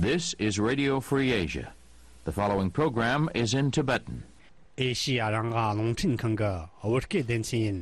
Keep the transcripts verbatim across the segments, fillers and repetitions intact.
This is Radio Free Asia. The following program is in Tibetan. ཨེ་ཤི་ཡ་རང་དབང་རླུང་འཕྲིན་ཁང་གི་བོད་སྐད་སྡེ་ཚན་ཡིན།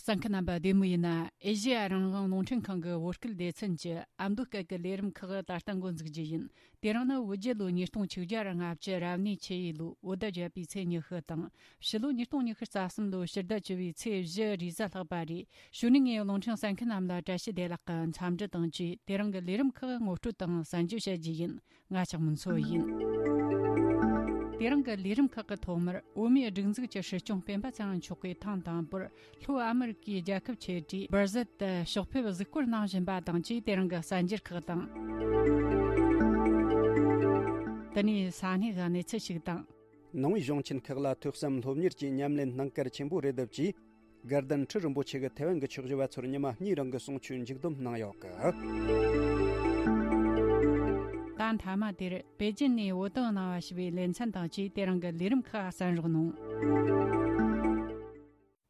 གསན་མཁན་རྣམ་པ་བདེ་མོ་ཡིན་ན། ཨེ་ཤི་ཡ་རང་དབང་རླུང་འཕྲིན་ཁང་གི་བོད་སྐད་སྡེ་ཚན་གྱི་ཨ་མདོ་སྐད་ཀྱི་ལས་རིམ་ཁག་ད་ལྟ་འགོ་འཛུགས་རྒྱུ་ཡིན། དེ་རིང་ནི་བོད་རྒྱལ་ལོ་ཉིས་སྟོང་ཆིག་བརྒྱ་ལྔ་བཅུ་རབ་གནས་ཆུ་ཡོས་ལོའི་བོད་ཟླ་བརྒྱད་པའི་ཚེས་ཉི་ཤུ་དང་། ཕྱི་ལོ་ཉིས་སྟོང་ཉི་ཤུ་རྩ་གསུམ་ལོའི་ཕྱི་ཟླ་བཅུ་བའི་ཚེས་བཞི་རེས་གཟའ་ལྷག་པ་རེད། གཞུག་ནས་ངས་རླུང་འཕྲིན་གསན་མཁན་རྣམས་ལ་བཀྲ་ཤིས་བདེ་ལེགས་ཀྱི་འཚམས་འདྲི་དང་བཅས། དེ་རིང་གི་ལས་རིམ་ཁག་ངོ་སྤྲོད་དང་གསན་རྒྱུ་བྱ་རྒྱུ་ཡིན། ང་ལྕགས་མོ་མཚོ་ཡིན། དེ་རིང་གི་ལས་རིམ་ཁག་གི་ཐོག་མར་བོད་མིའི་སྒྲིག་འཛུགས་ཀྱི་སྲིད་སྐྱོང་སྤེན་པ་ཚེ་རིང་མཆོག་གིས་ཐེངས་དང་པོར་ལྷོ་ཨ་མི་རི་ཀའི་རྒྱལ་ཁབ་ཆེ་གྲས་སྦར་ཟིལ་དུ་ཕྱོགས་ཕེབས་གཟིགས་སྐོར་གནང་བཞིན་པ་དང་བཅས། དེ་རིང་གི་གསར་འགྱུར་ཁག་དང་། དེ་ནས་ས་གནས་ཀྱི་གནས་ཚུལ་ཞིག་དང་། ནང་པའི་གཞུང་ཆེན་ཁག་ལ་ཐོས་བསམ་སློབ་གཉེར་གྱི་ཉམས་ལེན་གནང་གལ་ཆེན་པོ་རེད་འདུག་ཅེས། དགའ་ལྡན་ཁྲི་རིན་པོ་ཆེ་གིས་ཐའེ་ཝན་གྱི་ཆོས་ཞུ་བ་ཚོར་ཉི་མ་གཉིས་རིང་གི་གསུང་ཆོས་མཇུག་བསྡོམས་གནང་ཡོད་གི། ད་མཐའ་མ་དེར་པེ་ཅིན་ནས་བོད་དོན་གནང་བ་ཞུ་བའི་ལེ་ཚན་དང་བཅས། དེ་རིང་གི་ལས་རིམ་ཁག་གསན་རོགས་གནང་།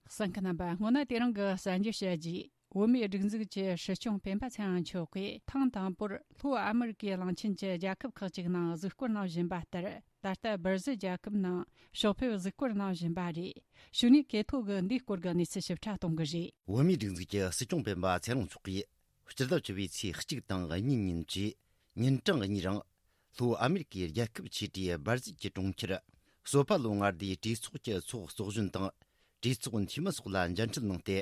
གསན་མཁན་རྣམ་པ། སྔོན་ན་དེ་རིང་གི་གསར་འགྱུར་བཤད་རྗེས། བོད་མིའི་སྒྲིག་འཛུགས་ཀྱི་སྲིད་སྐྱོང་སྤེན་པ་ཚེ་རིང་མཆོག་གིས་ཐེངས་དང་པོར་ལྷོ་ཨ་མི་རི་ཀའི་གླིང་ཆེན་གྱི་རྒྱལ་ཁབ་ཁག་ཅིག་ནང་གཟིགས་སྐོར་གནང་བཞིན་པ་ལྟར། ད་ལྟ་སྦར་ཟིལ་རྒྱལ་ཁབ་ནང་ཕྱོགས་ཕེབས་གཟིགས་སྐོར་གནང་བཞིན་པ་རེད། གཞུག་ནས་ཁེ་ཐོ་གིས་འདིའི་སྐོར་གྱི་གནས་ཚུལ་ཞིབ་ཕྲ་གཏོང་གི་རེད། བོད་མིའི་སྒྲིག་འཛུགས་ཀྱི་སྲིད་སྐྱོང་སྤེན་པ་ཚེ་རིང་མཆོག་གིས་སྤྱི་ཟླ་བཅུ་པའི་ཚེས་གཅིག་དང་གཉིས་ཉིན་གྱི་ཉིན་གྲངས་གཉིས་རིང་། ལྷོ་ཨ་མེ་རི་ཀའི་རྒྱལ་ཁབ་ཆེ་གྲས་སྦར་ཟིལ་གྱི་གྲོང་ཁྱེར་སོ་པ་ལོ་མངའ་སྡེའི་གྲོས་ཚོགས་ཀྱི་ཚོགས་གཙོ་གཞོན་དང་། གྲོས་ཚོགས་འཐུས་མི་སོགས་ལ་མཇལ་འཕྲད་གནང་སྟེ།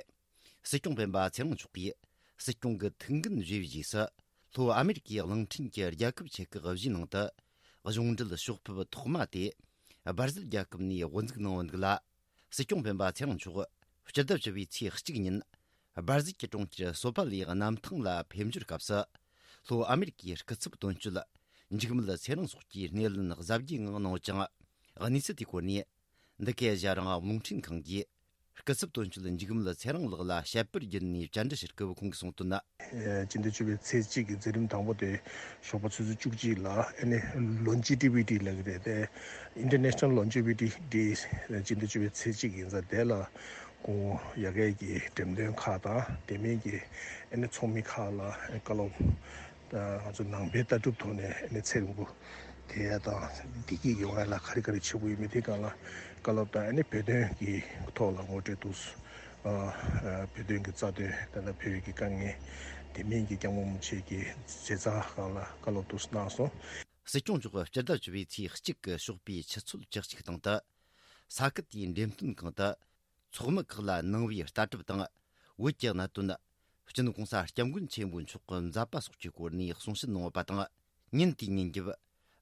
སྲིད་སྐྱོང་སྤེན་པ་ཚེ་རིང་མཆོག་གིས་སྲིད་སྐྱོང་གི་ཐུགས་འགན་བཞེས་པའི་རྗེས་སུ། ལྷོ་ཨ་མེ་རི་ཀའི་གླིང་ཕྲན་གྱི་རྒྱལ་ཁབ་ཆེ་ཁག་བཞིའི་ནང་དུ་གཞུང་འབྲེལ་ཕྱོགས་ཕེབས་ཐོག་མ་དེ་སྦར་ཟིལ་རྒྱལ་ཁབ་ནས་དབུ་འཛུགས་གནང་བ་འདུག་ལ། སྲིད་སྐྱོང་སྤེན་པ་ཚེ་རིང་མཆོག་སྤྱི་ཟླ་བཅུ་པའི་ཚེས་གཅིག་ཉིན་སྦར་ཟིལ་གྱི་གྲོང་ཁྱེར་སོ་པ་ལའི་གནམ་ཐང་ལ་ཕེབས་འབྱོར་སྐབས་སུ། ལྷོ་ཨ་མེ་རི་ཀའི་སྐུ་ཚབ་དོན་གཅོད་འཇིགས་མེད་ཚེ་རིང་སོགས་ཀྱིས་སྣེ་ལེན་གཟབ་རྒྱས་ངང་གནང་ཡོད་ཅིང་། གནས་ཚུལ་དེའི་སྐོར་ནས། འདི་གའི་ཨེ་ཤ་ཡ་རང་དབང་རླུང་འཕྲིན་ཁང་གིས་སྐུ་ཚབ་དོན་གཅོད་འཇིགས་མེད་ཚེ་རིང་ལགས་ལ་བཤད་པར་བརྒྱུད་ནས་བཅར་འདྲི་ཞུ་སྐབས། ཁོང་གིས་གསུངས་དོན་ནི། སྤྱི་ཟླ་བཅུ་པའི་ཚེས་གཅིག་གི་མཛད་རིམ་དང་པོ་དེ་ཞོགས་པ་ཆུ་ཚོད་བཅུ་གཅིག་ལ་ཨ་ནི་Longevity Day་ལབ་ཀྱི་རེད་དེ། International Longevity Day་སྤྱི་ཟླ་བཅུ་པའི་ཚེས་གཅིག་ཡིན་ཙང་། དེ་ལ་ཁོང་ཡ་གིའི་འགྲེམས་སྟོན་ཁག་དང་དེ་མིན་གྱི་ཨ་ནི་ཚོགས་མི་ཁག་ལ་བཀའ་སློབ། ད་ང་ཚོ་ནང་པའི་ལྟ་གྲུབ་ཐོག་ནས་ཨ་ནི་ཚེ་རིང་པོ་དེ་དང་བདེ་སྐྱིད་ཡོང་ཡ་ལ་ག་རེ་ག་རེ་བྱེད་དགོས་ཡོད་མེད་དེ་སྒང་ལ་བཀའ་སློབ་དང་། ཨ་ནི་བོད་དོན་གྱི་ཐོག་ལ་ངོ་སྤྲོད་འདུག། ཨ་ཨ་བོད་དོན་གྱི་རྩ་དོན། ད་ལྟ་བོད་ཀྱི་དཀའ་ངལ། དེ་མིན་གྱི་སྐྱབས་མགོན་རིན་པོ་ཆེ་གི་མཛད་རྩ་སྒང་ལ་བཀའ་སློབ་འདུག་གནང་སོང་། སྲིད་སྐྱོང་མཆོག་སྤྱི་ཟླ་བཅུ་པའི་ཚེས་གཅིག་གི་ཞོགས་པའི་ཆུ་ཚོད་བཅུ་གཅིག་སྟེང་དུ་ས་ཁུལ་དེའི་འགྲེམས་སྟོན་ཁང་དུ། ཚོགས་མི་ཁག་ལ་ནང་པའི་ལྟ་གྲུབ་དང་བོད་ཀྱི་གནད་དོན། སྤྱི་ནོར་གོང་ས་སྐྱབས་མགོན་ཆེན་པོ་མཆོག་གི་མཛད་པ་སོགས་ཀྱི་སྐོར་ནས་གསུང་བཤད་གནང་ཡོད་པ་དང་། ཉིན་དེའི་ཉིན་རྒྱབ་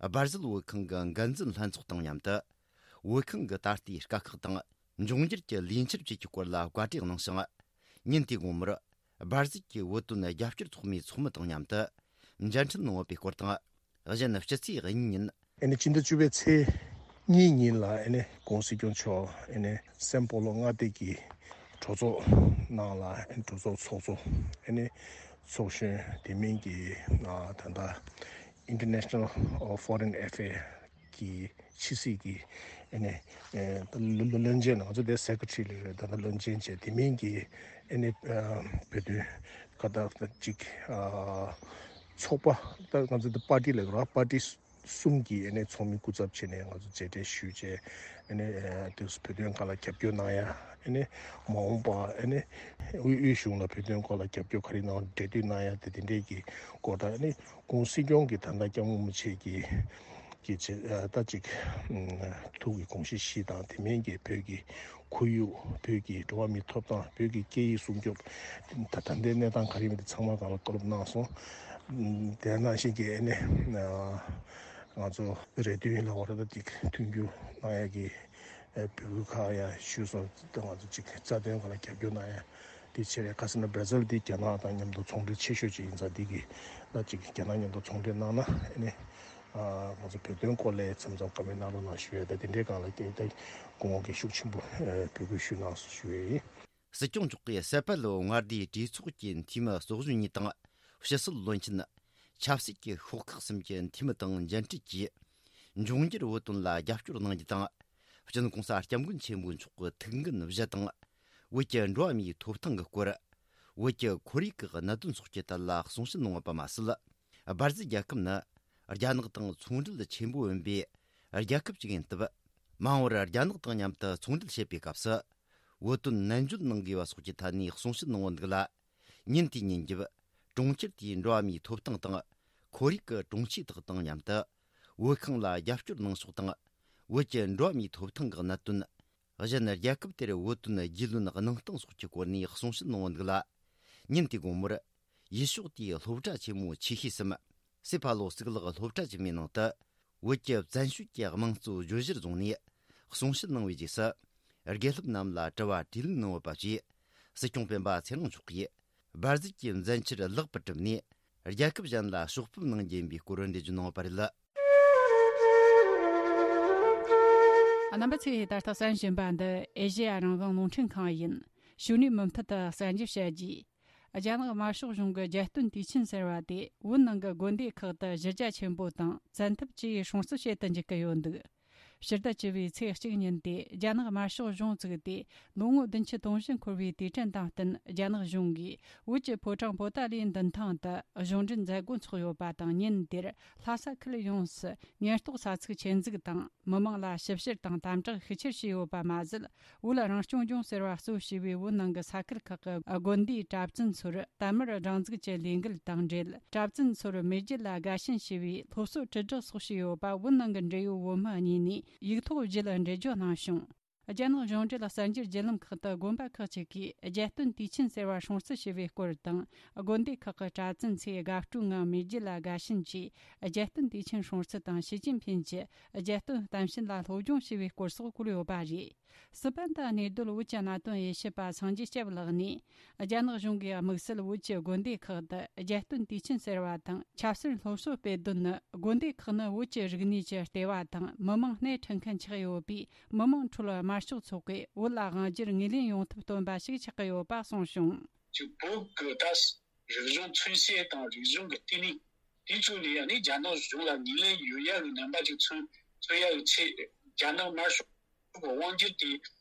སྦར་ཟིལ་བོད་ཁང་གི་འགན་འཛིན་ལྷན་ཚོགས་དང་མཉམ་དུ། བོད་ཁང་གི་ད་ལྟའི་དཀའ་ཁག་དང་འབྱུང་འགྱུར་གྱི་ལས་འཆར་བཅས་ཀྱི་སྐོར་ལ་བཀའ་འདྲི་གནང་ཞིང་། ཉིན་དེའི་དགོང་མོར་སྦར་ཟིལ་གྱི་བོད་དོན་རྒྱབ་སྐྱོར་ཚོགས་མིའི་ཚོགས་མི་དང་མཉམ་དུ་མཇལ་འཕྲད་གནང་ཡོད་པའི་སྐོར་དང་། གཞན་སྤྱི་ཚེས་གཉིས་ཉིན། ཨ་ནི་སྤྱི་ཟླ་བཅུ་པའི་ཚེས་གཉིས་ཉིན་ལ་ཨ་ནི་༸གོང་ས་༸སྐྱབས་མགོན་མཆོག་ཨ་ནི་སན་པོ་ལོ་མངའ་སྡེ་གི་གྲོས་ཚོགས་ནང་ལ། ཨ་ནི་གྲོས་ཚོགས་ཚོགས་གཙོ་ཨ་ནི་ཚོགས་གཞོན། དེ་མིན་གྱི་ཨ་ད་ལྟ་International Foreign Affairs་གི་ཕྱི་སྲིད་ཀྱི་ཨ་ནི་ཨ་བློན་ཆེན། ང་ཚོ་དེ་སེ་ཀེ་ཊི་རི་ལབ་རེད། ད་ལྟ་བློན་ཆེན་བྱས། དེ་མིན་གྱི་ཨ་ནི་ཨ་བོད་དོན་ཁ་ད་ཅིག་ཨ་ཚོགས་པ། ད་ང་ཚོ་དེ་པར་ཊི་ལབ་ར། པར་ཊི་གསུམ་གྱི་ཨ་ནི་ཚོགས་མི་སྐུ་ཚབ་བྱས་ནས་ང་ཚོ་མཇལ་འཕྲད་ཞུས་བྱས། ཨ་ནི་ཨ་དེ་བོད་དོན་སྒང་ལ་རྒྱབ་སྐྱོར་གནང་ཡ། ཨ་ནི་མ་འོངས་པ་ཨ་ནི་དབུས་དབུས་གཞུང་ལ་བོད་དོན་སྐོར་ལ་རྒྱབ་སྐྱོར་ག་རེ་གནང་། འབྲེལ་མཐུད་གནང་ཡ་དེ། དེ་འདྲའི་གི་སྐོར་དང་། ཨ་ནི་༸གོང་ས་༸སྐྱབས་མགོན་རིན་པོ་ཆེ་གི་གི་ཆེ་ཨ་ད་ཅིག་ཨ་ཐུགས་ཀྱི་དགོངས་གཞི་བཞི་དང་། དེ་མིན་གྱི་བོད་ཀྱི་ཁོར་ཡུག། བོད་ཀྱི་འགྲོ་བ་མིའི་ཐོབ་ཐང་། བོད་ཀྱི་སྐད་ཡིག་སྲུང་སྐྱོབ། ད་ད་ལྟའི་གནས་སྟངས་ག་རེ་ཡིན་མིན་དེ་ཚང་མ་སྒང་ལ་བཀའ་སློབ་གནང་སོང་། དེ་ནང་བཞིན་གྱི་ཨ་ནི་ཨ་ང་ཚོ་རེ་འདུན་ལ་བར་ད་ཅིག་མཐུན་འགྱུར་གནང་ཡ་གི་ཨ་འབོད་སྐུལ་ཁག་ཡ་ཞུས་སོང་། ད་ང་ཚོ་ཅིག་རྩ་དོན་སྒང་ལ་རྒྱབ་སྐྱོར་གནང་ཡ་དེ་བྱས་རེད། ཁ་སང་ན་སྦར་ཟིལ་དེ་རྒྱ་ནག་དང་མཉམ་དུ་ཚོང་འབྲེལ་ཆེ་ཤོས་ཅིག་ཡིན་ཙང་། དེ་གི་ད་ཅིག་རྒྱ་ནག་མཉམ་དུ་ཚོང་འབྲེལ་གནང་ན་ཨ་ནི་ཨ་ང་ཚོ་བོད་དོན་སྐོར་ལ་མཚམས་མཚམས་བཀའ་མོལ་གནང་རོགས་གནང་ཞུ་ཡ། ད་དེ་འདྲའི་སྒང་ལ་ཀྱང་ད་སྐུ་ངོ་གིས་ཤུགས་ཆེན་པོ་ཨ་འབོད་སྐུལ་ཞུས་གནང་སོང་ཞུ་ཡ་ཡིན། སྲིད་སྐྱོང་མཆོག་གིས་སེ་པལ་ལོ་མངའ་སྡེའི་གྲོས་ཚོགས་ཀྱི་འཐུས་མི་ཚོགས་གཞོན་གཉིས་དང་། ཕྱི་སྲིད་བློན་ཆེན། ཆབ་སྲིད་ཀྱི་ཤོག་ཁག་གསུམ་གྱི་འཐུས་མི་དང་མཇལ་འཕྲད་ཀྱིས། འབྱུང་འགྱུར་བོད་དོན་ལ་རྒྱབ་སྐྱོར་གནང་རྒྱུ་དང་། སྤྱི་ནོར་༸གོང་ས་༸སྐྱབས་མགོན་ཆེན་པོ་མཆོག་གི་ཐུགས་འགན་བཞེས་དང་། བོད་ཀྱི་འགྲོ་བ་མིའི་ཐོབ་ཐང་གི་སྐོར། བོད་ཀྱི་ཁོར་ཡུག་གི་གནད་དོན་སོགས་ཀྱི་ཐད་ལ་གསུང་བཤད་གནང་བ་པ་མ་ཟད། སྦར་ཟི་རྒྱལ་ཁབ་ནི་རྒྱ་ནག་དང་ཚོང་འབྲེལ་ཆེན་པོ་ཡིན་པའི་རྒྱལ་ཁབ་ཅིག་ཡིན་སྟབས། མ་འོངས་པར་རྒྱ་ནག་དང་མཉམ་དུ་ཚོང་འབྲེལ་བྱེད་པའི་སྐབས་སུ། བོད་དོན་ནན་བརྗོད་གནང་དགོས་པ་སོགས་ཀྱི་ཐད་ནས་གསུང་བཤད་གནང་བ་འདུག་ལ། ཉིན་དེའི་ཉིན་རྒྱབ། གྲོང་ཁྱེར་དེའི་འགྲོ་བ་མིའི་ཐོབ་ཐང་དང་། ཁོར་ཡུག་གི་དྲུང་ཆེ་དག་དང་མཉམ་དུ། བོད་ཁང་ལ་རྒྱབ་སྐྱོར་གནང་ཕྱོགས་དང་། བོད་ཀྱི་འགྲོ་བ་མིའི་ཐོབ་ཐང་གི་གནད་དོན། གཞན་རྒྱལ་ཁབ་དེར་བོད་དོན་རྒྱུས་ལོན་གནང་སྟངས་སོགས་ཀྱི་སྐོར་ནས་གསུང་བཤད་གནང་བ་འདུག་ལ། ཉིན་དེའི་དགོང་མོར། ཡུལ་ཕྱོགས་དེའི་སློབ་གྲྭ་ཆེན་མོ་ཆེ་ཤོས་སམ། སེ་ཕ་ལོ་གཙུག་ལག་སློབ་གྲྭ་ཆེན་མོའི་ནང་དུ། བོད་ཀྱི་བཙན་བྱོལ་གྱི་དམངས་གཙོ་བརྗོད་གཞིར་བཟུང་ནས་གསུང་བཤད་གནང་བའི་རྗེས་སུ། དགེ་སློབ་རྣམས་ལ་དྲི་བ་དྲིས་ལན་གནང་བ་བཅས། སྲིད་སྐྱོང་སྤེན་པ་ཚེ་རིང་མཆོག་གིས་སྦར་ཟི་གྱི་མཛད་འཆར་ལེགས་པར་གྲུབ་ནས། རྒྱལ་ཁབ་གཞན་ལ་ཕྱོགས་ཕེབས་གནང་རྒྱུ་ཡིན་པའི་སྐོར་འགྲེལ་བརྗོད་གནང་བ་རེད། རྣམ་པ་ཚོས་ད་ལྟ་གསན་བཞིན་པ་འདི་ཨེ་ཤེ་ཡ་རང་དབང་རླུང་འཕྲིན་ཁང་ཡིན། ཞུ་ནས་མུ་མཐུད་དུ་གསན་རྒྱུ་བྱ་རྒྱུ། རྒྱ་ནག་དམར་ཤོག་གཞུང་གི་རྒྱལ་སྟོན་དུས་ཆེན་ཟེར་བ་དེ་བོད་ནང་གི་དགོན་སྡེ་ཁག་ཏུ་གཞི་རྒྱ་ཆེན་པོ་དང་བཙན་ཐབས་ཀྱིས་སྲུང་བརྩི་བྱེད་དུ་འཇུག་གི་ཡོད་འདུག་ཕྱི་ཟླ་བཅུ་བའི་ཚེས་གཅིག་ཉིན་དེ་རྒྱ་ནག་དམར་ཤོག་གཞུང་བཙུགས་ཏེ་ལོ་ངོ་བདུན་ཅུ་དོན་བཞི་འཁོར་བའི་དུས་དྲན་དང་བསྟུན། རྒྱ་ནག་གཞུང་གིས་བོད་ཀྱི་ཕོ་བྲང་པོ་ཏཱ་ལའི་མདུན་ཐང་དུ་གཞུང་འབྲེལ་མཛད་སྒོ་འཚོགས་ཡོད་པ་དང་། ཉིན་དེར་ལྷ་ས་ཁུལ་ཡོངས་སུ་ཉེན་རྟོག་ས་ཚིགས་ཆེད་འཛུགས་དང་། མི་མང་ལ་ཞིབ་བཤེར་དང་དམ་དྲག་ཤུགས་ཆེར་བྱས་ཡོད་པ་མ་ཟད། བོད་རང་སྐྱོང་ལྗོངས་ཟེར་བ་གཙོ་བྱས་པའི་བོད་ནང་གི་ས་ཁུལ་ཁག་གི་དགོན་སྡེའི་གྲྭ་བཙུན་ཚོར་དར་དམར་སྒྲེང་འཛུགས་ཀྱི་ལས་འགུལ་དང་འབྲེལ། གྲྭ་བཙུན་ཚོར་མེས་རྒྱལ་ལ་དགའ་ཞེན་ཞེས་པའི་སློབ་གསོ་དྲིལ་བསྒྲགས་སོགས་བྱས་ཡོད་པ། བོད་ནང་གི་འབྲེལ་ཡོད་བོད་མི་གཉིས་ནས་ཡིག་ཐོག་བརྒྱུད་འགྲེལ་བརྗོད་གནང་བྱུང་། རྒྱ་ནག་གཞུང་འབྲེལ་གསར་འགྱུར་བརྒྱུད་ལམ་ཁག་ཏུ། དགོན་པ་ཁག་ཅིག་གིས་རྒྱལ་སྟོན་དུས་ཆེན་ཟེར་བ་སྲུང་བརྩི་བྱས་པའི་སྐོར་དང་། དགོན་སྡེ་ཁག་གི་གྲྭ་བཙུན་ཚོས་དགའ་སྤྲོའི་ངང་མེས་རྒྱལ་ལ་དགའ་ཞེན་གྱིས་རྒྱལ་སྟོན་དུས་ཆེན་སྲུང་བརྩི་དང་། ཞི་ཅིན་ཕིན་གྱི་རྒྱལ་སྟོན་གཏམ་བཤད་ལ་སློབ་སྦྱོང་བྱས་པའི་སྐོར་སོགས་བཀོད་ཡོད་པ་རེད། སི་པན་དུ་གནས་སྡོད་བོད་ཀྱི་གནད་དོན་དབྱེ་ཞིབ་པ་སངས་རྒྱས་སྐྱབས་ལགས་ནས། རྒྱ་ནག་གཞུང་གིས་དམིགས་བསལ་བོད་ཀྱི་དགོན་སྡེ་ཁག་ཏུ་རྒྱལ་སྟོན་དུས་ཆེན་ཟེར་བ་དང་། ཆབ་སྲིད་སློབ་གསོ་སྤེལ་དོན་ནི། དགོན་སྡེ་ཁག་ནི་བོད་ཀྱི་རིག་གནས་ཀྱི་ལྟེ་བ་དང་། མི་མང་སྣེ་ཁྲིད་མཁན་ཆགས་ཡོད་པས། མི་མང་ཁྲོད་དམར་ཤོག་ཚོགས་པས་བོད་ལ་དབང་སྒྱུར་ངོས་ལེན་ཡོང་ཐབས་སྟོན་པ་ཞིག་ཆགས་ཀྱི་ཡོད་པ་གསུངས་བྱུང་། ཅིག་བོད་ཀྱི་ད་རིག་གཞུང་མཚོན་བྱེད་དང་རིག་གཞུང་གི་ལྟེ་གནས་དེ་ཚོ་ནས་ཡང་ནི་རྒྱ་ནག་གཞུང་ལ་ངོས་ལེན་ཡོད་ཡག་གི་རྣམ་པ་ཅིག་མཚོན་མཚོན་ཡག་གི་ཆེད། རྒྱ་ནག་དམར་ཤོག་གི་དབང་སྒྱུར་དེ་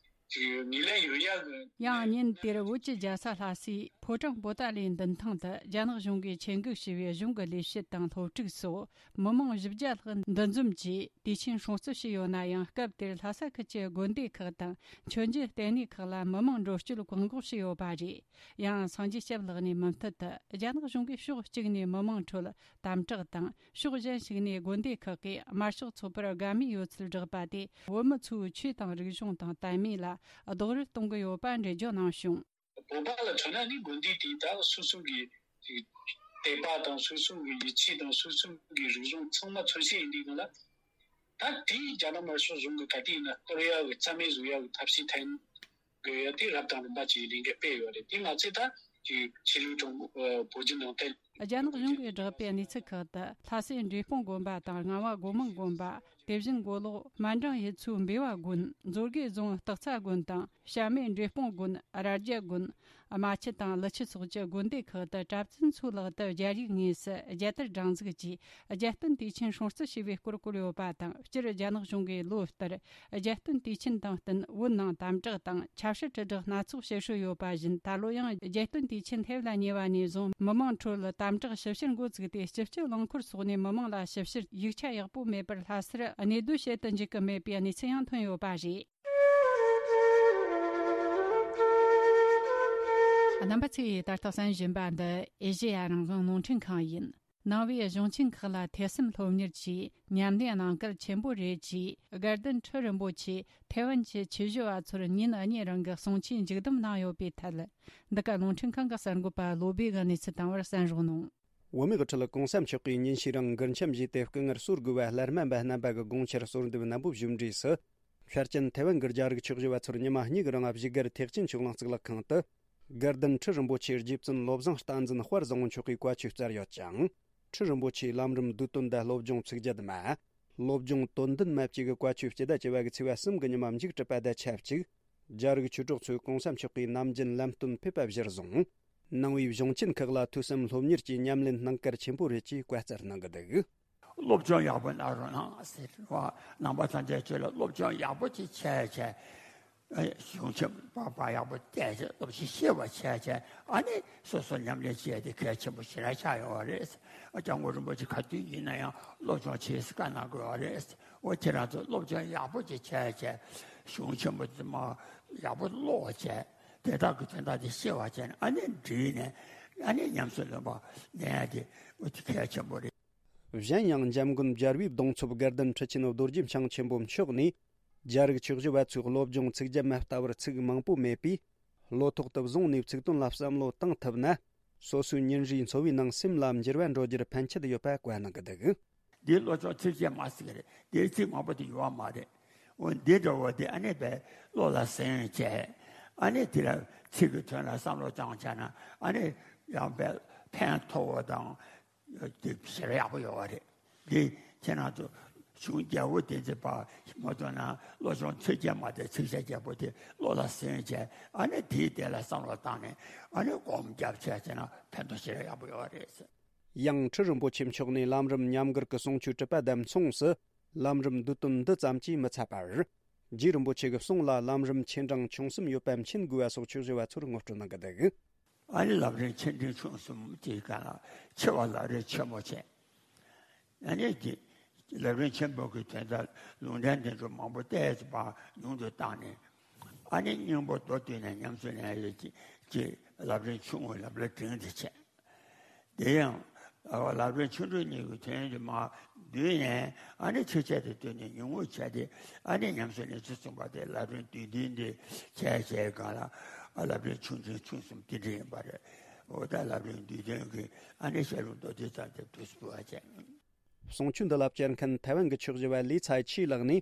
ཅིག་ངོས་ལེན་ཡོད་ཡག་གི། ཡང་ཉིན་དེར་བོད་ཀྱི་རྒྱལ་ས་ལྷ་སའི་ཕོ་བྲང་པོ་ཏཱ་ལའི་མདུན་ཐང་དུ་རྒྱ་ནག་གཞུང་གིས་ཆེད་འགོ་བྱས་པའི་གཞུང་གི་ལས་བྱེད་དང་སློབ་ཕྲུག་སོགས་མི་མང་བཞི་བརྒྱ་ལྷག་འདུ་འཛོམས་ཀྱིས་དུས་ཆེན་སྲུང་བརྩི་བྱས་ཡོད་ན་ཡང་། སྐབས་དེར་ལྷ་ས་ཁུལ་གྱི་དགོན་སྡེ་ཁག་དང་མཆོད་མཇལ་ལྟེ་གནས་ཁག་ལ་མི་མང་འགྲོ་སྐྱོད་བཀག་འགོག་བྱས་ཡོད་པ་རེད། ཡང་སངས་རྒྱས་སྐྱབས་ལགས་ནས་མུ་མཐུད་དུ། རྒྱ་ནག་གཞུང་གིས་ཕྱོགས་གཅིག་ནས་མི་མང་ཁྲོད་དམ་དྲག་དང་། ཕྱོགས་གཞན་ཞིག་ནས་དགོན་སྡེ་ཁག་གིས་དམར་ཤོག་ཚོགས་པར་དགའ་མོས་ཡོད་ཚུལ་བསྒྲགས་པ་དེས། བོད་མི་ཚོའི་ཆོས་དང་རིག་གཞུང་དང་དད་མོས་ལ་རྡོག་རོལ་གཏོང་གི་ཡོད་པ་འགྲེལ་བརྗོད་གནང་བྱུང་། བོད་པ་ལ་མཚོན་ན་ནི་དགོན་སྡེ་དེ་ད་སོ་སོ་གི་དད་པ་དང་། སོ་སོ་གི་ཡིད་ཆེས་དང་། སོ་སོ་གི་རིག་གཞུང་ཚང་མ་མཚོན་བྱེད་ཡིན་དུས་སྒང་ལ། ད་དེ་རྒྱ་ནག་དམར་ཤོག་གཞུང་གིས་ག་དུས་ཡིན་ན་གཏོར་ཡག་གི་རྩ་མེད་བཟོ་ཡག་གི་ཐབས་ཤེས་འཐེན་དགོས་ཡ་དེ་རབ་དང་རིམ་པ་ཅིག་ལས་འགུལ་སྤེལ་ཡོད་རེད། དེ་མ་ཚད་ད་ཅིག་ཆོས་ལུགས་གྲོགས་པོ་བོད་བརྒྱུད་ནང་བསྟན། རྒྱ་ནག་གཞུང་གིས་བསྒྲགས་པའི་གནས་ཚུལ་ཁག་ཏུ། ལྷ་སའི་འབྲས་སྤུངས་དགོན་པ་དང་། རྔ་བ་སྒོ་མང་དགོན་པ། དེ་བཞིན་མགོ་ལོག་སྨན་སྦྲང་ཡུལ་ཚོའི་འབེལ་བ་དགོན། མཛོད་དགེ་རྫོང་སྟག་ཚང་དགོན་དང་། བྱམས་མེད་འབྲས་སྤུངས་དགོན། རྭ་རྒྱ་དགོན། རྨ་ཆུ་དང་ཀླུ་ཆུ་སོགས་ཀྱི་དགོན་སྡེ་ཁག་ཏུ་གྲྭ་བཙུན་ཚོའི་ལག་ཏུ་རྒྱ་རིགས་དངོས་སུ་རྒྱལ་དར་སྒྲེང་འཛུགས་ཀྱིས་རྒྱལ་སྟོན་དུས་ཆེན་སྲུང་བརྩི་བྱས་པའི་སྐོར་བཀོད་ཡོད་པ་དང་། སྤྱིར་རྒྱ་ནག་གཞུང་གིས་ལོ་ལྟར་རྒྱལ་སྟོན་དུས་ཆེན་དང་བསྟུན་བོད་ནང་དམ་དྲག་དང་ཆབ་སྲིད་དྲིལ་བསྒྲགས་སྣ་ཚོགས་བྱེད་སྲོལ་ཡོད་པ་བཞིན། ད་ལོ་ཡང་རྒྱལ་སྟོན་དུས་ཆེན་སླེབས་ལ་ཉེ་བ་ནས་བཟུང་མི་མང་ཁྲོད་དམ་དྲག་ཞིབ་བཤེར་འགོ་བཙུགས་ཏེ། སྤྱི་སྤྱོད་རླངས་འཁོར་སོགས་ནས་མི་མང་ལ་ཞིབ་བཤེར་ཡིག་ཆ་ཡག་པོ་མེད་པར་ལྷ་སར་གནས་སྡོད་བྱེད་དུ་འཇུག་གི་མེད་པའི་གནས་ཚུལ་ཡང་ཐོན་ཡོད་པ་རེད། རྣམ་པ་ཚོས་ད་ལྟ་གསན་བཞིན་པ་འདི་ཨེ་ཤེ་ཡ་རང་དབང་རླུང་འཕྲིན་ཁང་ཡིན། ནང་པའི་གཞུང་ཆེན་ཁག་ལ་ཐོས་བསམ་སློབ་གཉེར་གྱིས་ཉམས་ལེན་གནང་གལ་ཆེན་པོ་རེད་ཅེས། དགའ་ལྡན་ཁྲི་རིན་པོ་ཆེས་ཐའེ་ཝན་གྱི་ཆོས་ཞུ་བ་ཚོར་ཉིན་གཉིས་རིང་གི་གསུང་ཆོས་མཇུག་བསྡོམས་གནང་ཡོད་པའི་ཐད། འདི་ག་རླུང་འཕྲིན་ཁང་གི་གསར་འགོད་པ་བློ་བྷེ་གིས་གནས་ཚུལ་བཏང་བར་གསན་རོགས་གནང་། བོད་མི་གི་ཁྲི་ལ་གོང་ས་མཆོག་གིས་ཉིན་ཤས་རིང་མགུར་འཆམ་བཞེས་ཏེ། སྐུ་ངལ་གསོ་དགོས་པ་སླར་སྨན་པ་རྣམ་པ་གི་དགོངས་འཆར་གསོལ་འདེབས་རྣམ་པོ་ཞུས་འབྲས་སུ། ཤར་ཅན་ཐའེ་ཝན་གྱི་རྒྱ་རིགས་ཆོས་ཞུ་བ་ཚོར་ཉི་མ་གཉིས་ཀྱི་རིང་བཞུགས་སྒར་ཐེག་ཆེན་ཆོས་གླིང་གཙུག་ལག་ཁང་དུ། དགའ་ལྡན་ཁྲི་རིན་པོ་ཆེའི་རྗེ་བཙུན་བློ་བཟང་བསྟན་འཛིན་དཔལ་བཟང་པོ་མཆོག་གིས་བཀའ་ཆོས་སྩལ་ཡོད་ཅིང་། ཁྲི་རིན་པོ་ཆེའི་ལམ་རིམ་བསྡུས་དོན་དང་སློབ་སྦྱོང་ཚིག་བརྒྱད་མ། སློབ་སྦྱོང་དོན་ལྡན་མ་བཅས་ཀྱི་བཀའ་ཆོས་སྤྱི་ཟླ་བཅུ་པ་གི་ཚེས་པ་གསུམ་གྱི་ཉི་མ་མཇུག་གྲུབ་པ་དང་ཆབས་ཅིག་རྒྱ་རིགས་ཆོས་གྲོགས་ཚོས་གོང་ས་མཆོག་གི་ནམ་རྒྱུན་ལམ་སྟོན་ཕེབས་པ་གཞིར་བཟུང་། ནང་པའི་གཞུང་ཆེན་ཁག་ལ་ཐོས་བསམ་སློབ་གཉེར་གྱི་ཉམས་ལེན་གནང་གལ་ཆེན་པོ་རེད་ཅེས་བཀའ་སྩལ་གནང་གི་འདུག་སློབ་སྦྱོང་ཡག་པོ་གནང་རོགས་གནང་ཟེར་བ། ནང་པ་ཐམས་ཅད་ཁྱོད་ལ་སློབ་སྦྱོང་ཡག་པོ་ཅིག་བྱས་བྱས། གཞུང་ཆེན་པོ་པ་ཡག་པོ་བལྟས་བྱས། སློབ་ཆེན་ཤེས་པ་བྱས་བྱས། ཨ་ནི་སོ་སོ་ཉམས་ལེན་བྱས་ཏེ་གལ་ཆེན་པོ་ཞེ་དྲག་ཆགས་ཡོང་བ་རེད། སྐྱབས་མགོན་རིན་པོ་ཆེ་ག་དུས་ཡིན་ན་ཡང་སློབ་སྦྱོང་བྱེད་ཟེར་བཀའ་གནང་དགོས་པ་རེད། འོ་ཁྱེད་རང་ཚོ་སློབ་སྦྱོང་ཡག་པོ་ཅིག་བྱས་བྱས། གཞུང་ཆེན་པོ་དེ་མ་ཡག་པོ་ཀློག་བྱས། དེ་དག་གི་དོན་དག་དེ་ཤེས་པ་བྱས་ནས། ཨ་ནི་འདྲིས་ནས་ཨ་ནི་ཉམས་སུ་ལེན་པ་ལེན་ཡ་དེ་འོ་དེ་གལ་ཆེན་པོ་རེད། གཞན་ཡང་འཇམ་མགོན་རྒྱལ་བའི་གདུང་འཚོབ་དགའ་ལྡན་ཁྲི་ཆེན་རྡོ་རྗེ་འཆང་ཆེན་པོ་མཆོག་ནས། རྒྱ་རིགས་ཆོས་ཞུ་བ་ཚོའི་སློབ་སྦྱོང་ཚིག་བརྒྱ་མ་ལྟ་བར་ཚིག་མང་པོ་མེད་པས། བློ་ཐོག་ཏུ་བཟུང་ནས་ཚིག་དོན་ལ་བསམ་བློ་བཏང་ཐུབ་ན། སོ་སོའི་ཉིན་རེའི་འཚོ་བའི་ནང་སེམས་ལ་འགྱུར་བ་འགྲོ་རྒྱུར་ཕན་ཆད་ཡོད་པ་བཀའ་གནང་གི་འདུག་འདིའི་བློ་སྦྱོང་ཚིག་བརྒྱ་མ་ཟེར་གི་རེད། འདིའི་ཚིག་མང་པོ་དེ་ཡོད་མ་རེད། འོ་འདི་འདྲ་བོ་དེ་ཨ་ནི་བས་བློ་ལ་ཟིན་བྱས། ཨ་ནི་དེ་ལ་ཚིག་གི་དོན་ལ་བསམ་བློ་བཏང་བྱས་ན། ཨ་ནི་ཡང་བས་ཕན་ཐོགས་པ་དང་། དེ་ཞེ་དྲག་ཡག་པོ་ཡོད་པ་རེད། འདི་ཁྱེད་རང་ཚོ་གཞུང་རྒྱལ་པོ་བསྟན་འཛིན་པ་མ་གཏོགས་ན། བློ་སྦྱོང་ཚིག་བརྒྱ་མ་དེ་ཚིག་བྱ་རྒྱལ་པོ་དེ་བློ་ལ་ཟིན་བྱས། ཨ་ནི་དེའི་དེ་ལ་བསམ་བློ་བཏང་ནས། ཨ་ནི་སྒོམ་རྒྱབ་བྱས་བྱས་ན་ཕན་ཐོགས་ཞེ་དྲག་ཡག་པོ་ཡོད་པ་རེད། ཡང་ཁྲི་རིན་པོ་ཆེ་མཆོག་ནས་ལམ་རིམ་ཉམས་མགུར་གྱི་གསུང་ཆོས་གྲུབ་པ་དང་མཚུངས་སུ། ལམ་རིམ་བསྡུས་དོན་འདི་ཙམ་གྱིས་མི་ཚད་པར། རྗེ་རིན་པོ་ཆེ་གི་གསུང་ལ་ལམ་རིམ་ཆེ་འབྲིང་ཆུང་གསུམ་ཡོད་པ་མཁྱེན་དགོས་པ་སོགས་ཆོས་ཞུ་བ་ཚོར་ངོ་སྤྲོད་གནང་གི་འདུག་ཨ་ནི་ལམ་རིམ་ཆེ་འབྲིང་ཆུང་གསུམ་གྱི་སྒང་ལ་ཆེ་བ་ལམ་རིམ་ཆེན་མོ་བྱས། ཨ་ནི་དེ་ལམ་རིམ་ཆེན་པོ་གི་དོན་དག་ལུང་འདྲེན་དེ་ཚོ་མང་པོ་བལྟས་པ་ཉུང་དུ་བཏང་ནས། ཨ་ནི་སྙིང་པོ་མདོར་བསྡུས་ནས་ཉམས་སུ་ལེན་ཡས་ཀྱི་ལམ་རིམ་ཆུང་ངུ་ལམ་རིམ་འབྲིང་དེ་བྱས། དེ་ཡང་ལམ་རིམ་ཆུང་འབྲིང་གཉིས་ཀྱི་དོན་དེ་མར་བསྡུས་ནས། ཨ་ནི་ཆེ་ཆེ་དེ་བསྡུས་ནས་ཉུང་ངུ་བྱས་ཏེ། ཨ་ནི་ཉམས་སུ་ལེན་ཚུལ་གསུངས་པ་དེ། ལམ་རིམ་བསྡུས་དོན་དེ་བྱས་བྱས་སྒང་ལ། ཨ་ལམ་རིམ་ཆུང་འབྲིང་ཆུང་གསུམ་དེ་འདྲ་ཡིན་པ་རེད། འོ་ད་ལམ་རིམ་བསྡུས་དོན་གྱི་ཨ་ནི་བཤད་ལུང་མདོར་བསྡུས་ཙམ་དེ་དུས་སུ་བ་བྱས། གསུང་ཆོས་འདི་ལ་བཅར་མཁན་ཐའེ་ཝན་གྱི་ཆོས་ཞུ་བ་ལི་ཚའི་ཆི་ལགས་ནས།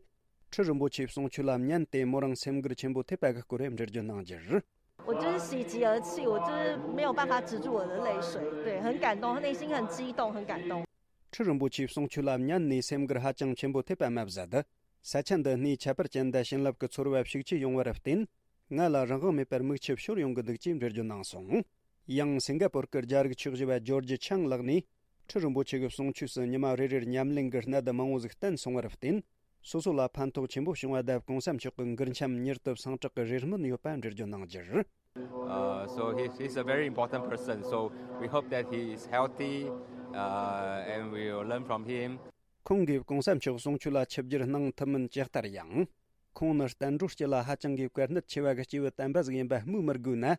ཁྲི་རིན་པོ་ཆེའི་གསུང་ཆོས་ལ་ཉན་ཏེ་མོ་རང་སེམས་འགུལ་ཆེན་པོ་ཐེབས་པ་གི་སྐོར་འགྲེལ་བརྗོད་གནང་རྒྱུར། 我就是喜极而泣，我就是没有办法止住我的泪水，对，很感动，内心很激动，很感动。 ཁྲི་རིན་པོ་ཆེའི་གསུང་ཆོས་ལ་ཉན་ནས་སེམས་འགུལ་ཧ་ཅང་ཆེན་པོ་ཐེབས་པ་མ་ཟད། ས་ཆ་འདི་སྣེའི་ཁྱད་པར་ཅན་དང་བྱིན་རླབས་ཀྱི་ཚོར་བ་ཤུགས་ཆེ་ཡོང་བར་བརྟེན། ང་ལ་རང་དབང་མེད་པར་མིག་ཆུ་ཤོར་ཡོང་གི་འདུག་ཅེས་འགྲེལ་བརྗོད་གནང་སོང་། ཡང་སིང་ག་པོར་གྱི་རྒྱ་རིགས་ཆོས་ཞུ་བ་ཇོར་ཇི་ཆང་ལགས་ནས། ཁྲི་རིན་པོ་ཆེ་གི་གསུང་ཆོས་སུ་ཉི་མ་རེ་རེར་ཉམས་ལེན་གྱི་གནད་མང་བོ་ཟིག་བསྟན་སོང་བར་བརྟེན། སོ་སོ་ལ་ཕན་ཐོགས་ཆེན་པོ་བྱུང་བ་དང་། གོང་ས་མཆོག་གི་མགུར་འཆམ་མྱུར་དུ་སངས་དྲག་གི་རེ་སྨོན་ཡོད་པ་འགྲེལ་བརྗོད་གནང་རྒྱུར། Uh, so he, he's a very important person. So we hope that he is healthy, uh, and we will learn from him. ཁོང་གིས་གོང་ས་མཆོག་གསུང་ཆོས་ལ་ཆིབས་བསྒྱུར་གནང་ཐུབ་མིན་ཇི་ལྟར་ཡང་། ཁོང་ནི་བསྟན་འགྲོའི་དཀྱིལ་ལ་ཧ་ཅང་གི་བཀའ་གནད་ཆེ་བ་གི་སྐྱེས་བུ་དམ་པ་ཟིག་ཡིན་པ་སྨོས་མི་དགོས་ན།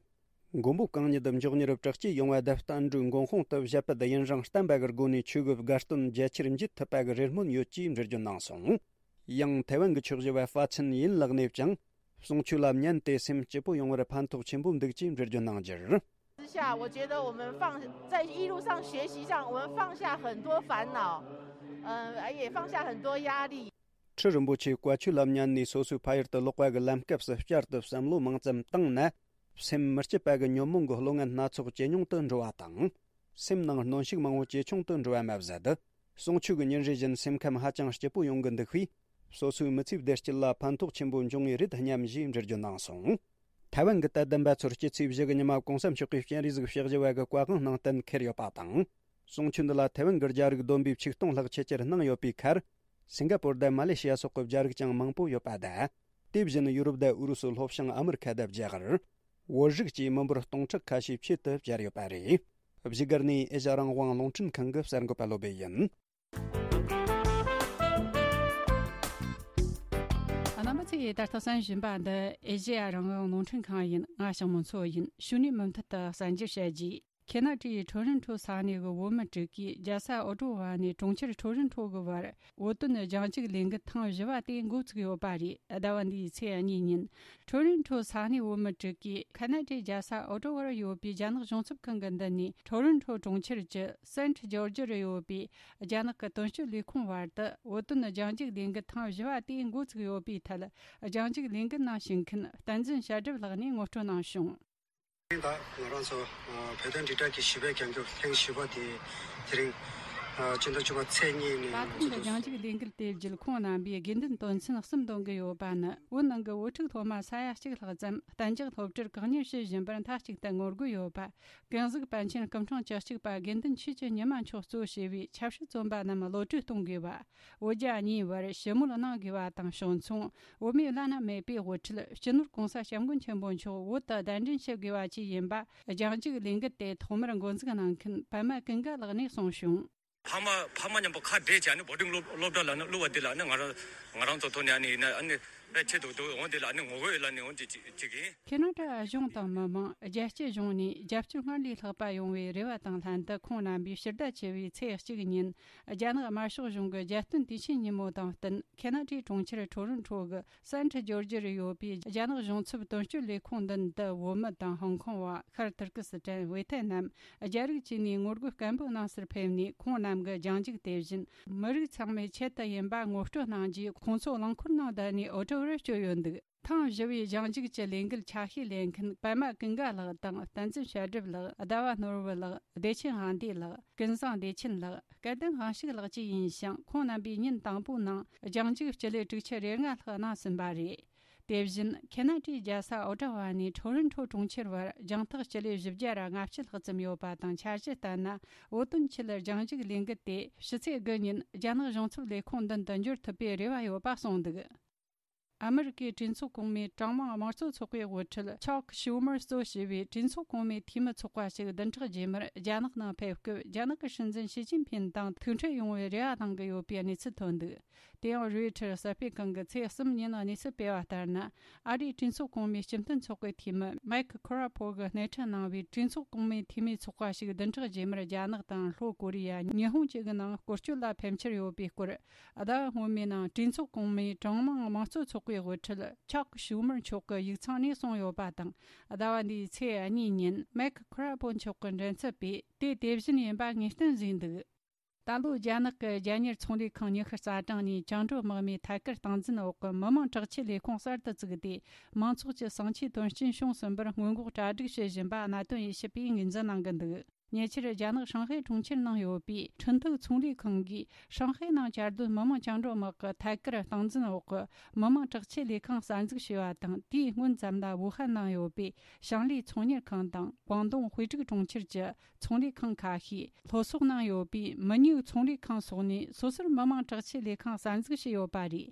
མགོན་པོ་གང་ཉིད་མགྱོགས་མྱུར་བྲག་སྐྱེས་ཡོང་བ་དང་། བསྟན་འགྲོའི་མགོན་དཔུང་དུ་བཞད་པ་དེ་ཡུན་རིང་བརྟན་པ་གི་སྒོ་ནས་ཆོས་གི་དགའ་སྟོན་རྒྱ་ཆེར་འབྱེད་ཐུབ་པ་གི་རེ་སྨོན་ཡོད་ཅེས་འགྲེལ་བརྗོད་གནང་སོང་། ཡང་ཐའེ་ཝན་གྱི་ཆོས་ཞུ་བ་ཧྥ་ཆིན་ཡིན་ལགས་ནས་ཀྱང་། གསུང་ཆོས་ལ་ཉན་ཏེ་སེམས་སྐྱིད་པོ་ཡོང་བར་ཕན་ཐོགས་ཆེན་པོ་འདུག་ཅེས་འགྲེལ་བརྗོད་གནང་རྒྱུར། 之下，我觉得我们放在一路上学习上，我们放下很多烦恼，呃，也放下很多压力。 ཁྲི་རིན་པོ་ཆེའི་བཀའ་ཆོས་ལ་ཉན་ནས་སོ་སོའི་ཕ་ཡུལ་དུ་ལོག་པ་གི་ལམ་སྐབས་སུ་བསྐྱར་དུ་བསམ་བློ་མང་ཙམ་བཏང་ན། སེམས་མི་སྐྱིད་པ་གི་ཉོན་མོངས་ཀྱི་བློ་ངན་སྣ་ཚོགས་ཇེ་ཉུང་དུ་འགྲོ་བ་དང་། སེམས་ནང་གནོན་ཤུགས་མང་བོ་ཇེ་ཆུང་དུ་འགྲོ་བ་མ་ཟད། གསུང་ཆོས་ཀྱི་ཉིན་རེ་བཞིན་སེམས་ཁམས་ཧ་ཅང་སྐྱིད་པོ་ཡོང་གི་འདུག་པས། སོ་སོའི་མི་ཚེའི་བདེ་སྐྱིད་ལ་ཕན་ཐོགས་ཆེན་པོ་འབྱུང་ངེས་རེད་སྙམ་ཞེས་འགྲེལ་བརྗོད་གནང་སོང་། ཐའེ་ཝན་གྱི་དད་ལྡན་པ་ཚོར་སྐྱེད་ཚེས་བཞི་གི་ཉི་མ་གོང་ས་མཆོག་གིས་སྤྱན་རས་གཟིགས་ཕྱག་བཞི་པ་གི་བཀའ་དབང་གནང་གཏན་འཁེལ་ཡོད་པ་དང་། གསུང་ཆོས་འདི་ལ་ཐའེ་ཝན་གྱི་རྒྱ་རིགས་བསྡོམས་པས་ཆིག་སྟོང་ལྷག་ཆེད་གཅར་གནང་ཡོད་པའི་ཁར། སིང་ག་པོར་དང་མ་ལེ་ཤི་ཡ་སོགས་ཀྱི་རྒྱ་རིགས་ཀྱང་མང་པོ་ཡོད་པ་དང་། དེ་བཞིན་ཡུ་རོབ་དང་ཨུ་རུ་སུ་ལྷོ་བྱང་ཨ་མི་རི་ཁ་དང་རྒྱ་གར། བོད་རིགས་བཅས་མི་འབོར་སྟོང་ཕྲག་ཁ་ཤས་ཆེད་དུ་བཅར་ཡོད་པ་རེད། བཞུགས་སྒར་ནས་ཨེ་ཤ་རང་དབང་རླུང་འཕྲིན་ཁང་གི་གསར་འགོད་པ་བློ་བྷེ་ཡིན། རྣམ་པ་ཚོས་ད་ལྟ་གསན་བཞིན་པ་འདི་ཨེ་ཤེ་ཡ་རང་དབང་རླུང་འཕྲིན་ཁང་ཡིན། ང་ཞང་མོ་མཚོ་ཡིན། གཞུག་ནས་མུ་མཐུད་དུ་གསར་འགྱུར་བཤད་རྒྱུ། ཁེ་ན་ཌའི་ཊོ་རོན་ཊོ་ས་གནས་ཀྱི་བོད་མི་དྲུག་གིས་རྒྱལ་ས་ཨོ་ཊོ་ཝ་ནས་གྲོང་ཁྱེར་ཊོ་རོན་ཊོ་གི་བར་བོད་དོན་རྒྱང་བཀྱུག་ལས་འགུལ་ཐེངས་བཞི་པ་དེ་འགོ་བཙུགས་ཡོད་པ་རེད། ཟླ་བ་འདིའི་ཚེས་གཉིས་ཉིན། ཊོ་རོན་ཊོ་ས་གནས་བོད་མི་དྲུག་གིས་ཁ་ན་ཌའི་རྒྱལ་ས་ཨོ་ཊོ་ཝར་ཡོད་པའི་རྒྱ་ནག་གཞུང་ཚབ་ཁང་གི་མདུན་ནས། ཊོ་རོན་ཊོ་གྲོང་ཁྱེར་གྱི་སེན་ཊི་ཇོར་ཇི་རུ་ཡོད་པའི་རྒྱ་ནག་གི་དོན་གཅོད་ལས་ཁུངས་བར་དུ་བོད་དོན་རྒྱང་བཀྱུག་ལས་འགུལ་ཐེངས་བཞི་པ་དེ་འགོ་བཙུགས་ཡོད་པའི་ཐད། རྒྱང་བཀྱུག་ལས་འགུལ་ནང་ཞུགས་མཁན་བསྟན་འཛིན་བྱ་སྒྲུབ་ལགས་ནས་ངོ་སྤྲོད་གནང་བྱུང་། ད་ང་རང་ཚོ་བོད་དོན་དྲིལ་བསྒྲགས་ཀྱི་བཞི་པའི་རྒྱང་བཀྱུག་ཐེངས་བཞི་པ་དེ་དེ་རིང་ ཨ། སྤྱི་ཟླ་བཅུ་པ་ཚེས་གཉིས་ནས། ད་ཐེངས་ཀྱི་རྒྱང་རྒྱུག་ལས་འགུལ་དེ་བརྒྱུད་ཁོང་རྣམ་པས་དགོས་འདུན་དོན་ཚན་གསུམ་འདོན་གི་ཡོད་པ་ནི། བོད་ནང་གི་བོད་ཕྲུག་སློབ་མ་ས་ཡ་གཅིག་ལྷག་ཙམ་གཏན་འཇགས་སློབ་གྲྭར་བཀག་ཉར་བྱེད་བཞིན་པར་མཐའ་གཅིག་ཏུ་ངོ་རྒོལ་ཡོད་པ། ཀུན་གཟིགས་པཎ་ཆེན་སྐུ་ཕྲེང་བཅུ་གཅིག་པ་དགེ་འདུན་ཆོས་ཀྱི་ཉི་མ་མཆོག་གཙོ་བྱས་པའི་ཆབ་སྲིད་བཙོན་པ་རྣམས་གློད་གྲོལ་གཏོང་དགོས་པ། བོད་རྒྱ་གཉིས་བར་ཞི་མོལ་གནང་དགོས་པ་དང་ཕྱོགས་མཚུངས། བོད་མིའི་བླ་ན་མེད་པའི་དབུ་ཁྲིད་སྤྱི་ནོར་༸གོང་ས་༸སྐྱབས་མགོན་ཆེན་པོ་མཆོག་བོད་དུ་གདན་འདྲེན་བྱེད་དགོས་པ་བཅས་ཡིན་པ། རྒྱང་རྒྱུག་ལས་འགུལ་དེ་ཐོག་མར་འགོ་འཛུགས་གནང་མཁན་པད་མ་ཀུན་དགའ་ལགས་ནས་གསུངས་བྱུང་། ཕ་མ་ཕ་མ་མཉམ་པོ་ཁ་བྲལ་བྱས་ནས་བོར་ཌིང་སློབ་སློབ་གྲྭ་ལ་ནི་བླུགས་པ་དེ་ལ་ནི་ང་རང་ང་རང་ཚོ་ཐོག་ནས་ཨ་ནི་ཡིན་ན་ཨ་ནི་དཔེ་ཆེ་འདུག་འདུག་འོང་དེ་ལ་ནི་ངོ་རྒོལ་ཡོད་ལ་ནི་འོང་དེ་ཅིག་ཅིག་ཡིན། ཁེ་ན་ཌ་གཞུང་དང་མི་མང་རྒྱལ་སྤྱི་གཞུང་ནས་རྒྱབ་སྐྱོར་སྔར་ལས་ལྷག་པ་ཡོང་བའི་རེ་བ་དང་ལྷན་དུ། ཁོང་རྣམ་པས་ཕྱི་ཟླ་བཅུ་བའི་ཚེས་གཅིག་ཉིན་རྒྱ་ནག་དམར་ཤོག་གཞུང་གི་རྒྱལ་སྟོན་དུས་ཆེན་ཉིན་མོ་དང་བསྟུན། ཁེ་ན་ཌའི་གྲོང་ཁྱེར་ཊོ་རོན་ཊོ་གི་སན་ཊི་ཇོར་ཇི་རུ་ཡོད་པའི་རྒྱ་ནག་གཞུང་ཚབ་དོན་གཅོད་ལས་ཁུངས་མདུན་དུ། བོད་མི་དང་ཧོང་ཀོང་བ། ཤར་ཏུར་ཀི་སི་ཐན། ཝེ་ཐེ་ནམ། རྒྱ་རིགས་བཅས་ནས་ངོ་རྒོལ་སྐད་འབོད་གནང་སར་ཕེབས་ནས། ཁོང་རྣམས་ཀྱི་རྒྱང་རྒྱུག་དེ་བཞིན་མི་རིགས་ཚང་མའི་ཆེད་དུ་ཡིན་པ་ངོ་སྤྲོད་གནང་རྗེས། ཁོང་ཚོ་རླངས་འཁོར་ནང་བསྡད་ནས་འུར་སྒྲ་བར་བསྐྱོད་ཡོད་འདུག་ཐེངས་བཞི་བའི་རྒྱང་རྒྱུག་གི་ལས་འགུལ་ཆ་ཤས་ལེན་མཁན་པད་མ་ཀུན་དགའ་ལགས་དང་། བསྟན་འཛིན་བཤད་སྒྲུབ་ལགས། ཟླ་བ་ནོར་བུ་ལགས། བདེ་ཆེན་དབང་འདུས་ལགས། ཀུན་བཟང་བདེ་ཆེན་ལགས། སྐལ་ལྡན་དབང་ཕྱུག་ལགས་བཅས་ཡིན་ཞིང་། ཁོང་རྣམ་པས་ཉིན་དང་པོའི་ནང་རྒྱང་རྒྱུག་སྤྱི་ལེ་དྲུག་ཅུ་རེ་ལྔ་ལྷག་གནང་ཟིན་པ་རེད། དེ་བཞིན་ཁེ་ན་ཌའི་རྒྱལ་ས་ཨོ་ཊ་ཝ་ནས་ཊོ་རོན་ཊོ་གྲོང་ཁྱེར་བར་རྒྱང་ཐག་སྤྱི་ལེ་བཞི་བརྒྱ་ར་ལྔ་བཅུ་ལྷག་ཙམ་ཡོད་པ་དང་། འཆར་གཞི་ལྟར་ན། བོད་དོན་ཆེད་རྒྱང་རྒྱུག་ལས་འགུལ་དེ་ཕྱི་ཚེས་དགུ་ཉིན་རྒྱ་ནག་གཞུང་ཚབ་ལས་ཁུངས་མདུན་དུ་འབྱོར་ཐུབ་པའི་རེ་བ་ཡོད་པ་གསུངས་འདུག་ཨ་མི་རི་ཀའི་གྲོས་ཚོགས་གོང་མའི་གྲངས་མང་དམངས་གཙོ་ཚོགས་པའི་དབུ་ཁྲིད་ཆག་ཤུ་མར་གཙོ་བྱས་པའི་གྲོས་ཚོགས་གོང་མའི་འཐུས་མི་ཚོགས་པ་ཞིག་བདུན་ཕྲག་རྗེས་མར་རྒྱ་ནག་ནང་ཕེབས་སྐབས། རྒྱ་ནག་གི་སྲིད་འཛིན་ཞི་ཅིན་ཕིན་དང་ཐུག་འཕྲད་ཡོང་བའི་རེ་བ་གནང་གི་ཡོད་པའི་གནས་ཚུལ་ཐོན་འདུག་དེ་ཡང་རོའི་ཊར་གསར་སྤེལ་ཁང་གིས་ཚེས་གསུམ་ཉིན་གནས་ཚུལ་སྤེལ་བ་ལྟར་ན། ཨ་རིའི་གྲོས་ཚོགས་གོང་མའི་སྤྱི་མཐུན་ཚོགས་པའི་འཐུས་མི་མེག་ཁོ་ར་ཕོ་གིས་སྣེ་ཁྲིད་གནང་བའི་གྲོས་ཚོགས་གོང་མའི་འཐུས་མིའི་ཚོགས་པ་ཞིག་བདུན་ཕྲག་རྗེས་མར་རྒྱ་ནག་དང་ལྷོ་ཀོ་རི་ཡ། ཉི་ཧོང་བཅས་ཀྱི་ནང་སྐོར་སྐྱོད་ལ་ཕེབས་འཆར་ཡོད་པའི་སྐོར། ཟླ་བ་སྔོན་མའི་ནང་གྲོས་ཚོགས་གོང་མའི་གྲངས་མང་དམངས་གཙོ་ཚོགས་པའི་དབུ་ཁྲིད་ཆག་ཤུ་མར་མཆོག་གིས་ཡིག་ཚང་ནས་གསུངས་ཡོད་པ་དང་། ཟླ་བ་འདིའི་ཚེས་གཉིས་ཉིན་མེག་ཁོ་ར་ཕོ་མཆོག་གི་མགྲིན་ཚབ་པས་དེ་དེ་བཞིན་ཡིན་པ་ངེས་གཏན་བཟོས་འདུག་ད་ལོ་རྒྱ་ནག་གི་རྒྱལ་གཉེར་ཚོང་ལས་ཁང་ཉི་ཤུ་རྩ་གྲངས་ནས་བཅིངས་འགྲོལ་དམག་མིའི་ཐད་ཀར་སྟངས་འཛིན་འོག་གི་མི་དམངས་དྲག་ཆས་ལས་ཁུངས་གསར་དུ་བཙུགས་ཏེ། མང་ཚོགས་ཀྱི་ཟིང་ཆའི་དོན་རྐྱེན་བྱུང་ཟིན་པར་སྔོན་འགོག་གྲ་སྒྲིག་བྱེད་བཞིན་པ་གནད་དོན་དབྱེ་ཞིབ་པས་ངོས་འཛིན་གནང་གི་འདུག་ཉེ་ཆར་རྒྱ་ནག་ཧྲང་ཧའེ་གྲོང་ཁྱེར་ནང་ཡོད་པའི་ཁྲིན་ཏུའུ་ཚོང་ལས་ཁང་གིས། ཧྲང་ཧའེ་ནང་གྱར་སྡོད་མི་དམངས་བཅིངས་འགྲོལ་དམག་གི་ཐད་ཀར་སྟངས་འཛིན་འོག་གི་མི་དམངས་དྲག་ཆས་ལས་ཁང་གསར་འཛུགས་བྱས་པ་དང་། དེའི་སྔོན་ཙམ་ལ་ཝུ་ཧན་ནང་ཡོད་པའི་ཞང་ལི་ཚོང་གཉེར་ཁང་དང་། ཀོང་ཏུང་ཧུའེ་ཀྲིག་གྲོང་ཁྱེར་གྱི་ཚོང་ལས་ཁང་ཁ་ཤས། ལྷོ་སོག་ནང་ཡོད་པའི་མི་ཉུའུ་ཚོང་ལས་ཁང་སོགས་ནས་སོ་སོར་མི་དམངས་དྲག་ཆས་ལས་ཁང་གསར་འཛུགས་བྱས་ཡོད་པ་རེད།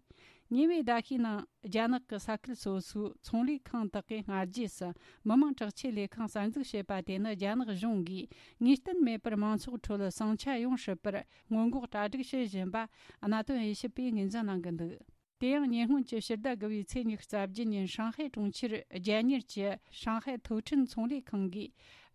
ཉེ་བའི་ཟླ་ཤས་ནང་རྒྱ་ནག་གི་ས་ཁུལ་སོ་སོའི་ཚོང་ལས་ཁང་དག་གིས་སྔ་རྗེས་སུ་མི་དམངས་དྲག་ཆས་ལས་ཁང་གསར་འཛུགས་བྱས་པ་དེ་ནི། རྒྱ་ནག་གཞུང་གིས་ངེས་གཏན་མེད་པར་མང་ཚོགས་ཁྲོད་ཟིང་ཆ་ཡོང་སྲིད་པར་སྔོན་འགོག་གྲ་སྒྲིག་བྱེད་བཞིན་པ་གནད་དོན་དབྱེ་ཞིབ་པས་ངོས་འཛིན་གནང་གི་འདུག་དེ་ཡང་ཉེ་སྔོན་གྱི་ཕྱི་ཟླ་དགུ་བའི་ཚེས་ཉི་ཤུ་རྩ་བརྒྱད་ཉིན། ཧྲང་ཧའེ་གྲོང་ཁྱེར་རྒྱལ་གཉེར་གྱི་ཧྲང་ཧའེ་ཐུའུ་ཁྲིན་ཚོང་ལས་ཁང་གིས།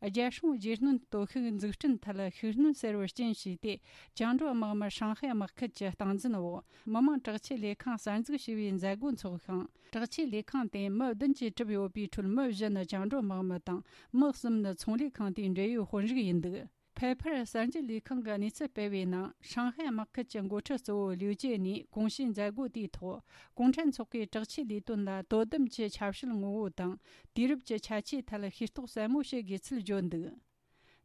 རྒྱལ་སྲུང་རྗེས་སྣོན་སྟོབས་ཤུགས་འཛུགས་སྐྲུན་ཐད་ཤུགས་སྣོན་གསར་བར་རྐྱེན་བྱས་ཏེ། བཅིངས་འགྲོལ་དམག་མི་ཧྲང་ཧའེ་དམག་ཁུལ་གྱི་སྟངས་འཛིན་འོག་མི་དམངས་དྲག་ཆས་ལས་ཁང་གསར་འཛུགས་བྱས་པའི་མཛད་སྒོ་འཚོགས་ཤིང་། དྲག་ཆས་ལས་ཁང་དེ་མི་བདུན་གྱིས་གྲུབ་ཡོད་པའི་ཁྲོད། མི་བཞི་ནི་བཅིངས་འགྲོལ་དམག་མི་དང་། མི་གསུམ་ནི་ཚོང་ལས་ཁང་དེའི་འབྲེལ་ཡོད་དཔོན་རིགས་ཡིན་འདུག་ཕེ་ཕར་གསར་འགྱུར་ལས་ཁང་གིས་གནས་ཚུལ་སྤེལ་བའི་ནང་། ཧྲང་ཧའེ་དམག་ཁུལ་གྱི་འགོ་ཁྲིད་གཙོ་བོ་ལིའུ་ཅེ་ནས་གོང་ཞུས་མཛད་སྒོ་དེའི་ཐོག་གུང་ཁྲན་ཚོགས་པའི་དྲག་ཆས་ལས་དོན་ལ་དོ་དམ་གྱི་ཆབ་སྲིད་ངོ་བོ་དང་། དུས་རབས་ཀྱི་ཁྱད་ཆོས་ཐད་ཤེས་རྟོགས་གསལ་མོ་བྱེད་དགོས་ཚུལ་བརྗོད་འདུག་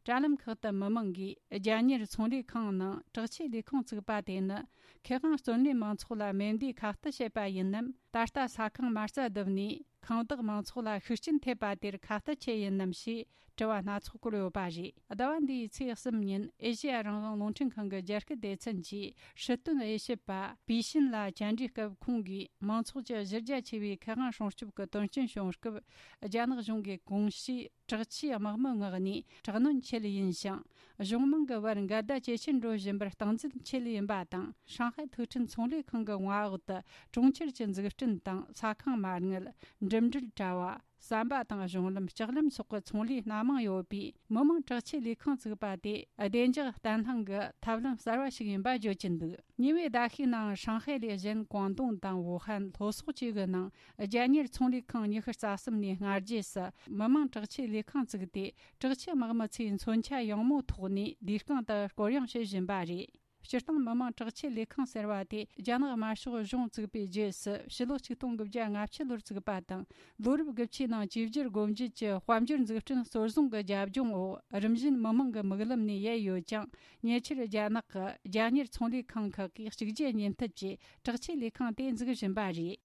དྲ་ལམ་ཁག་ཏུ་མི་མང་གིས། རྒྱལ་གཉེར་ཚོང་ལས་ཁང་ནང་དྲག་ཆས་ལས་ཁུངས་བཙུགས་པ་དེ་ནི། མཁས་དབང་བརྩོན་ལེན་མང་ཚོགས་ལ་མེ་མདའི་ཁ་གཏད་བྱེད་པ་ཡིན་ནམ། ད་ལྟ་ས་ཁང་མ་རྩ་བརྡིབས་ནས། ཁང་བདག་མང་ཚོགས་ལ་ཤུགས་རྐྱེན་ཐེབས་པ་དེར་ཁ་གཏད་ཆེ་ཡིན་ནམ་ཞེས་དྲི་བ་སྣ་ཚོགས་བཀོད་ཡོད་པ་རེད། ཟླ་བ་འདིའི་ཚེས་གསུམ་ཉིན་ཨེ་ཤེ་ཡ་རང་དབང་རླུང་འཕྲིན་ཁང་གི་རྒྱ་སྐད་སྡེ་ཚན་གྱིས་སྲིད་དོན་དབྱེ་ཞིབ་པ་པི་ཤིན་ལ་བཅར་འདྲི་སྐབས། ཁོང་གིས་མང་ཚོགས་ཀྱི་གཞི་རྒྱ་ཆེ་བའི་མཁས་དབང་སྲུང་སྐྱོབ་ཀྱི་དོན་རྐྱེན་བྱུང་སྐབས། རྒྱ་ནག་གཞུང་གིས་གོང་ཞུས་དྲག་ཆས་དམག་མི་མངགས་ནས་དྲག་གནོན་ཆེད་ཡིན་ཞིང་། གཞུང་མང་གི་བར་འགལ་ཟླ་ཇེ་ཆེར་འགྲོ་བཞིན་པར་སྟངས་འཛིན་ཆེད་ཡིན་པ་དང་། ཧྲང་ཧའེ་ཐུག་འཕྲིན་ཚོང་ལས་ཁང་གི་མངའ་འོག་ཏུ་གྲོང་ཁྱེར་གྱི་འཛུགས་སྐྲུན་དང་། ས་ཁང་མ་དངུལ། འགྲིམ་འགྲུལ་དྲ་བ། ཟམ་པ་དང་གཞུང་ལམ། ལྕགས་ལམ་སོགས་ཀྱི་ཚོང་ལས་སྣ་མང་ཡོད་པའི་མི་དམངས་དྲག་ཆས་ལས་ཁང་བཙུགས་པ་དེ། བདེ་འཇགས་བརྟན་ལྷིང་གི་ཐབས་ལམ་གསར་བ་ཞིག་ཡིན་པ་བརྗོད་ཀྱིན་འདུག་ཉེ་བའི་ཟླ་ཤས་ནང་། ཧྲང་ཧའེ་ལས་གཞན་ཀོང་ཏུང་དང་ཝུ་ཧན། ལྷོ་སོག་བཅས་ཀྱི་ནང་། རྒྱལ་གཉེར་ཚོང་ལས་ཁང་ཉི་ཤུ་རྩ་གསུམ་ནས་སྔ་རྗེས་སུ་མི་དམངས་དྲག་ཆས་ལས་ཁང་བཙུགས་ཏེ། དྲག་ཆས་དམག་མི་ཚོས་མཚོན་ཆ་ཡང་མོ་ཐོགས་ནས་ལས་རྐང་དུ་སྐོར་གཡེང་བྱེད་བཞིན་པ་རེད། སྤྱིར་བཏང་མི་དམངས་དྲག་ཆས་ལས་ཁང་ཟེར་བ་དེ་རྒྱ་ནག་དམར་ཤོག་གཞུང་བཙུགས་པའི་རྗེས་སུ་ཕྱི་ལོ་ཆིག་སྟོང་དགུ་བརྒྱ་ལྔ་བཅུ་ལོར་བཙུགས་པ་དང་། ལོ་རབས་དགུ་བཅུའི་ནང་བཅོས་བསྒྱུར་སྒོ་འབྱེད་ཀྱི་དཔལ་འབྱོར་འཛུགས་སྐྲུན་གཙོ་བཟུང་གི་རྒྱབ་ལྗོངས་འོག་རིམ་བཞིན་མི་དམངས་ཀྱི་མིག་ལམ་ནས་ཡལ་ཡོད་ཀྱང་། ཉེ་ཆར་རྒྱ་ནག་གི་རྒྱ་གཉེར་ཚོང་ལས་ཁང་ཁག་གིས་གཅིག་རྗེས་གཉིས་མཐུད་ཀྱིས་དྲག་ཆས་ལས་ཁང་དེ་འཛུགས་བཞིན་པ་རེད།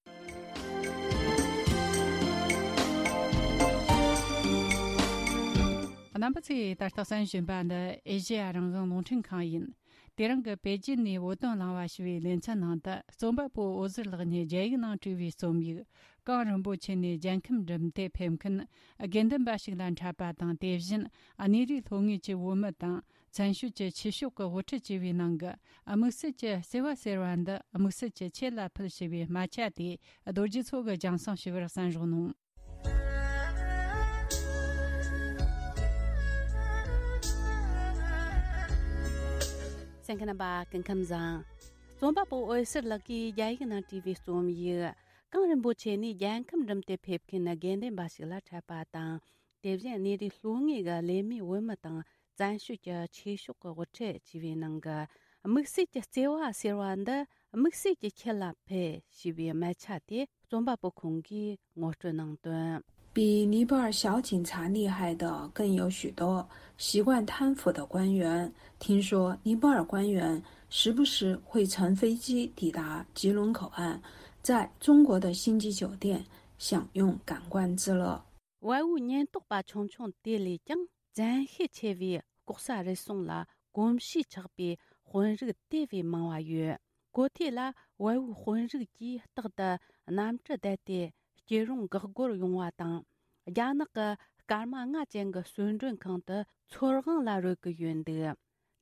རྣམ་པ་ཚོས་ད་ལྟ་གསན་བཞིན་པ་འདི་ཨེ་ཤེ་ཡ་རང་དབང་རླུང་འཕྲིན་ཁང་ཡིན། དེ་རིང་གི་པེ་ཅིན་ནས་བོད་དོན་གླེང་བ་ཞུ་བའི་ལེ་ཚན་ནང་དུ། རྩོམ་པ་པོ་འོད་ཟེར་ལགས་ཉིད་རྒྱ་ཡིག་ནང་བྲིས་པའི་རྩོམ་ཡིག་གངས་རིན་པོ་ཆེ་ནས་རྒྱལ་ཁམས་འགྲིམ་དེ་ཕེབས་མཁན་དགེ་འདུན་པ་ཞིག་ལ་འཕྲད་པ་དང་། དེ་བཞིན་གནས་རིའི་ལྷོ་ངོས་ཀྱི་བོད་མི་དང་། བཙན་བྱོལ་གྱི་ཆོས་ཕྱོགས་ཀྱི་དབུ་ཁྲིད་ཅེས་པའི་ནང་གི་དམིགས་བསལ་གྱི་བརྩེ་བ་ཟེར་བ་འདི་དམིགས་བསལ་གྱི་ཁྱེད་ལ་ཕུལ་ཞེས་པའི་སྨད་ཆ་དེ་རྡོ་རྗེ་མཚོ་གིས་རྒྱང་སྲིང་ཞུ་བར་གསན་རོགས་གནང་། གསན་མཁན་རྣམ་པ་སྐུ་ཁམས་བཟང་། རྩོམ་པ་པོ་འོད་ཟེར་ལགས་ཀྱིས་རྒྱ་ཡིག་ནང་བྲིས་པའི་རྩོམ་ཡིག་གངས་རིན་པོ་ཆེ་ནས་རྒྱལ་ཁམས་འགྲིམ་དེ་ཕེབས་མཁན་དགེ་འདུན་པ་ཞིག་ལ་འཕྲད་པ་དང་། དེ་བཞིན་གནས་རིའི་ལྷོ་ངོས་ཀྱི་ལས་མེད་བོད་མི་དང་། བཙན་བྱོལ་གྱི་ཆོས་ཕྱོགས་ཀྱི་དབུ་ཁྲིད་ཅེས་པའི་ནང་གི་དམིགས་བསལ་གྱི་བརྩེ་བ་ཟེར་བ་འདི་དམིགས་བསལ་གྱི་ཁྱེད་ལ་ཕུལ་ཞེས་པའི་སྨད་ཆ་དེ་རྩོམ་པ་པོ་ཁོང་གིས་ངོ་སྤྲོད་གནང་དོན། 比尼泊尔小警察厉害的更有许多。习惯贪腐的官员，听说尼泊尔官员时不时会乘飞机抵达吉隆口岸，在中国的星级酒店享用感官之乐。 བལ་བོའི་ཉེན་རྟོག་པ་ཆུང་ཆུང་དེ་ལས་ཀྱང་བཙན་ཤེད་ཆེ་བའི་ལྐོག་ཟ་རུལ་སུངས་ལ་གོམས་གཤིས་ཆགས་པའི་དཔོན་རིགས་དེ་བས་མང་བ་ཡོད། གོ་ཐོས་ལ་བལ་བོའི་དཔོན་རིགས་ཀྱིས་རྟག་ཏུ་གནམ་གྲུ་བསྡད་དེ་སྐྱིད་རུང་འགག་སྒོར་ཡོང་བ་དང་། རྒྱ་ནག་གི་སྐར་མ་ལྔ་ཅན་གྱི་གསོལ་མགྲོན་ཁང་དུ་ཚོར་དབང་ལ་རོལ་གྱི་ཡོད་འདུག།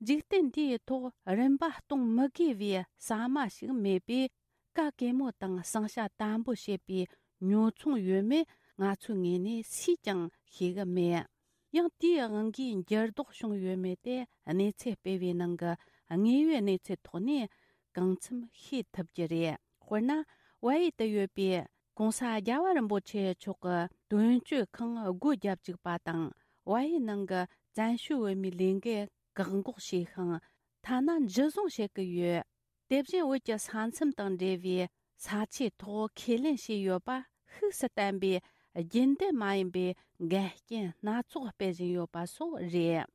འཇིག་རྟེན་འདིའི་ཐོག་རིན་པ་གཏོང་མི་དགོས་པའི་ཟ་མ་ཞིག་མེད་པས། ག་གེ་མོ་དང་ཟིང་ཆ་དམ་པོ་བྱེད་པའི་ཉོ་ཚོང་ཡོད་མེད་ང་ཚོའི་ངོས་ནས་སུས་ཀྱང་ཤེས་གི་མེད། ཡང་དེའི་དབང་གིས་འགྱུར་ལྡོག་བྱུང་ཡོད་མེད་དེ་གནས་ཚུལ་སྤེལ་བའི་ནང་གི་དངོས་ཡོད་གནས་ཚུལ་ཐོག་ནས་གང་འཚམ་ཤེས་ཐུབ་ཀྱི་རེད། དཔེར་ན། བལ་ཡུལ་དུ་ཡོད་པའི་༸གོང་ས་༸རྒྱལ་བ་རིན་པོ་ཆེ་མཆོག་གི་དོན་གཅོད་ཁང་སྒོ་བརྒྱབ་བཅུག་པ་དང་། བལ་ཡུལ་ནང་གི་བཙན་བྱོལ་བོད་མིའི་ལས་འགུལ་བཀག་འགོག་བྱས་ཤིང་། ཐ་ན་འཇུ་བཟུང་བྱེད་ཀྱི་ཡོད། དེ་བཞིན་བོད་ཀྱི་ས་མཚམས་དང་འབྲེལ་བའི་ས་ཆའི་ཐོག་ཁས་ལེན་བྱས་ཡོད་པ་ཤུགས་སུ་བསྟན་པའི་རྒྱུན་ལྡན་མ་ཡིན་པའི་འགལ་རྐྱེན་སྣ་ཚོགས་སྤེལ་བཞིན་ཡོད་པ་སོགས་རེད།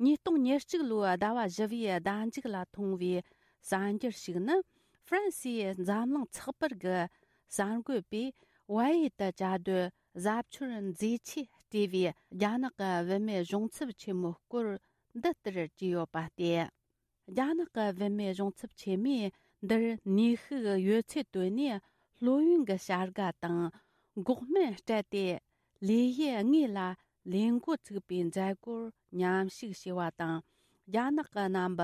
ཉིས་སྟོང་ཉེར་གཅིག་ལོའི་ཟླ་བ་བཞི་བའི་ཟླ་མཇུག་ལ་མཐོང་བའི་གསར་འགྱུར་ཞིག་ནི། ཧྥ་རན་སིའི་འཛམ་གླིང་ཚགས་པར་གྱི་གསར་འགོད་པས་བལ་ཡུལ་དུ་བཅའ་སྡོད་གཟབ་མཆོར་མཛེས་ཆས་སྤྲས་པའི་རྒྱ་ནག་གི་བུད་མེད་གཞུང་ཚབ་ཆེན་མོའི་སྐོར་འདི་ལྟར་བྲིས་ཡོད་པ་སྟེ། རྒྱ་ནག་གི་བུད་མེད་གཞུང་ཚབ་ཆེན་མོས་འདིར་ནུས་ཤུགས་ཡོད་ཚད་བཏོན་ནས་སློབ་ཡོན་གྱི་བྱ་དགའ་དང་འགོག་སྨན་སྤྲད་དེ། ལས་གཞི་དངོས་ལ་ལས་འགོ་ཚུགས་པའི་མཛད་སྒོར་མཉམ་ཞུགས་བྱས་པ་དང་། རྒྱ་ནག་གི་རྣམ་པ་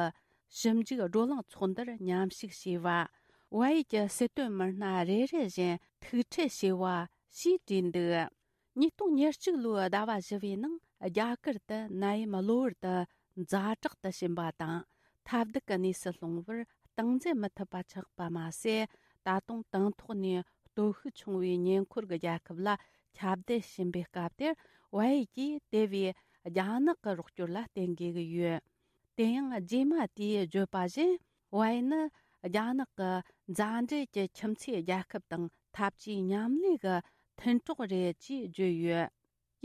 ཞིབ་འཇུག་བགྲོ་གླེང་ཚོགས་འདུར་མཉམ་ཞུགས་བྱས་པ། བལ་ཡུལ་གྱི་སྲིད་དོན་མི་སྣ་རེ་རེ་བཞིན་ཐུག་འཕྲད་བྱས་པ་ཞེས་བྲིས་འདུག། ཉིས་སྟོང་ཉེར་གཅིག་ལོའི་ཟླ་བ་བཞི་བའི་ནང་རྒྱ་གར་དུ་ནད་ཡམས་གློ་བུར་དུ་ཛ་དྲག་ཏུ་ཕྱིན་པ་དང་། ཐབས་སྡུག་གི་གནས་སུ་ལྷུང་བར་སྟངས་འཛིན་མི་ཐུབ་པ་ཆགས་པ་མ་ཟད། ད་དུང་དང་ཐོག་ནས་སྟོབས་ཤུགས་ཆུང་བའི་ཉེ་འཁོར་གྱི་རྒྱལ་ཁབ་ལ་ཁྱབ་གདལ་ཕྱིན་པའི་སྐབས་དེར། བལ་ཡུལ་གྱིས་དེ་བས་རྒྱ་ནག་གི་རོགས་སྐྱོར་ལ་བརྟེན་དགོས་ཀྱི་ཡོད། དེ་ཡང་རྗེས་མ་དེས་བརྗོད་པ་བཞིན། བལ་ཡུལ་ནི་རྒྱ་ནག་གི་མཛའ་འབྲེལ་གྱི་ཁྱིམ་མཚེས་རྒྱལ་ཁབ་དང་འཐབ་ཇུས་མཉམ་ལས་ཀྱི་མཐུན་གྲོགས་རེད་ཅེས་བརྗོད་ཡོད།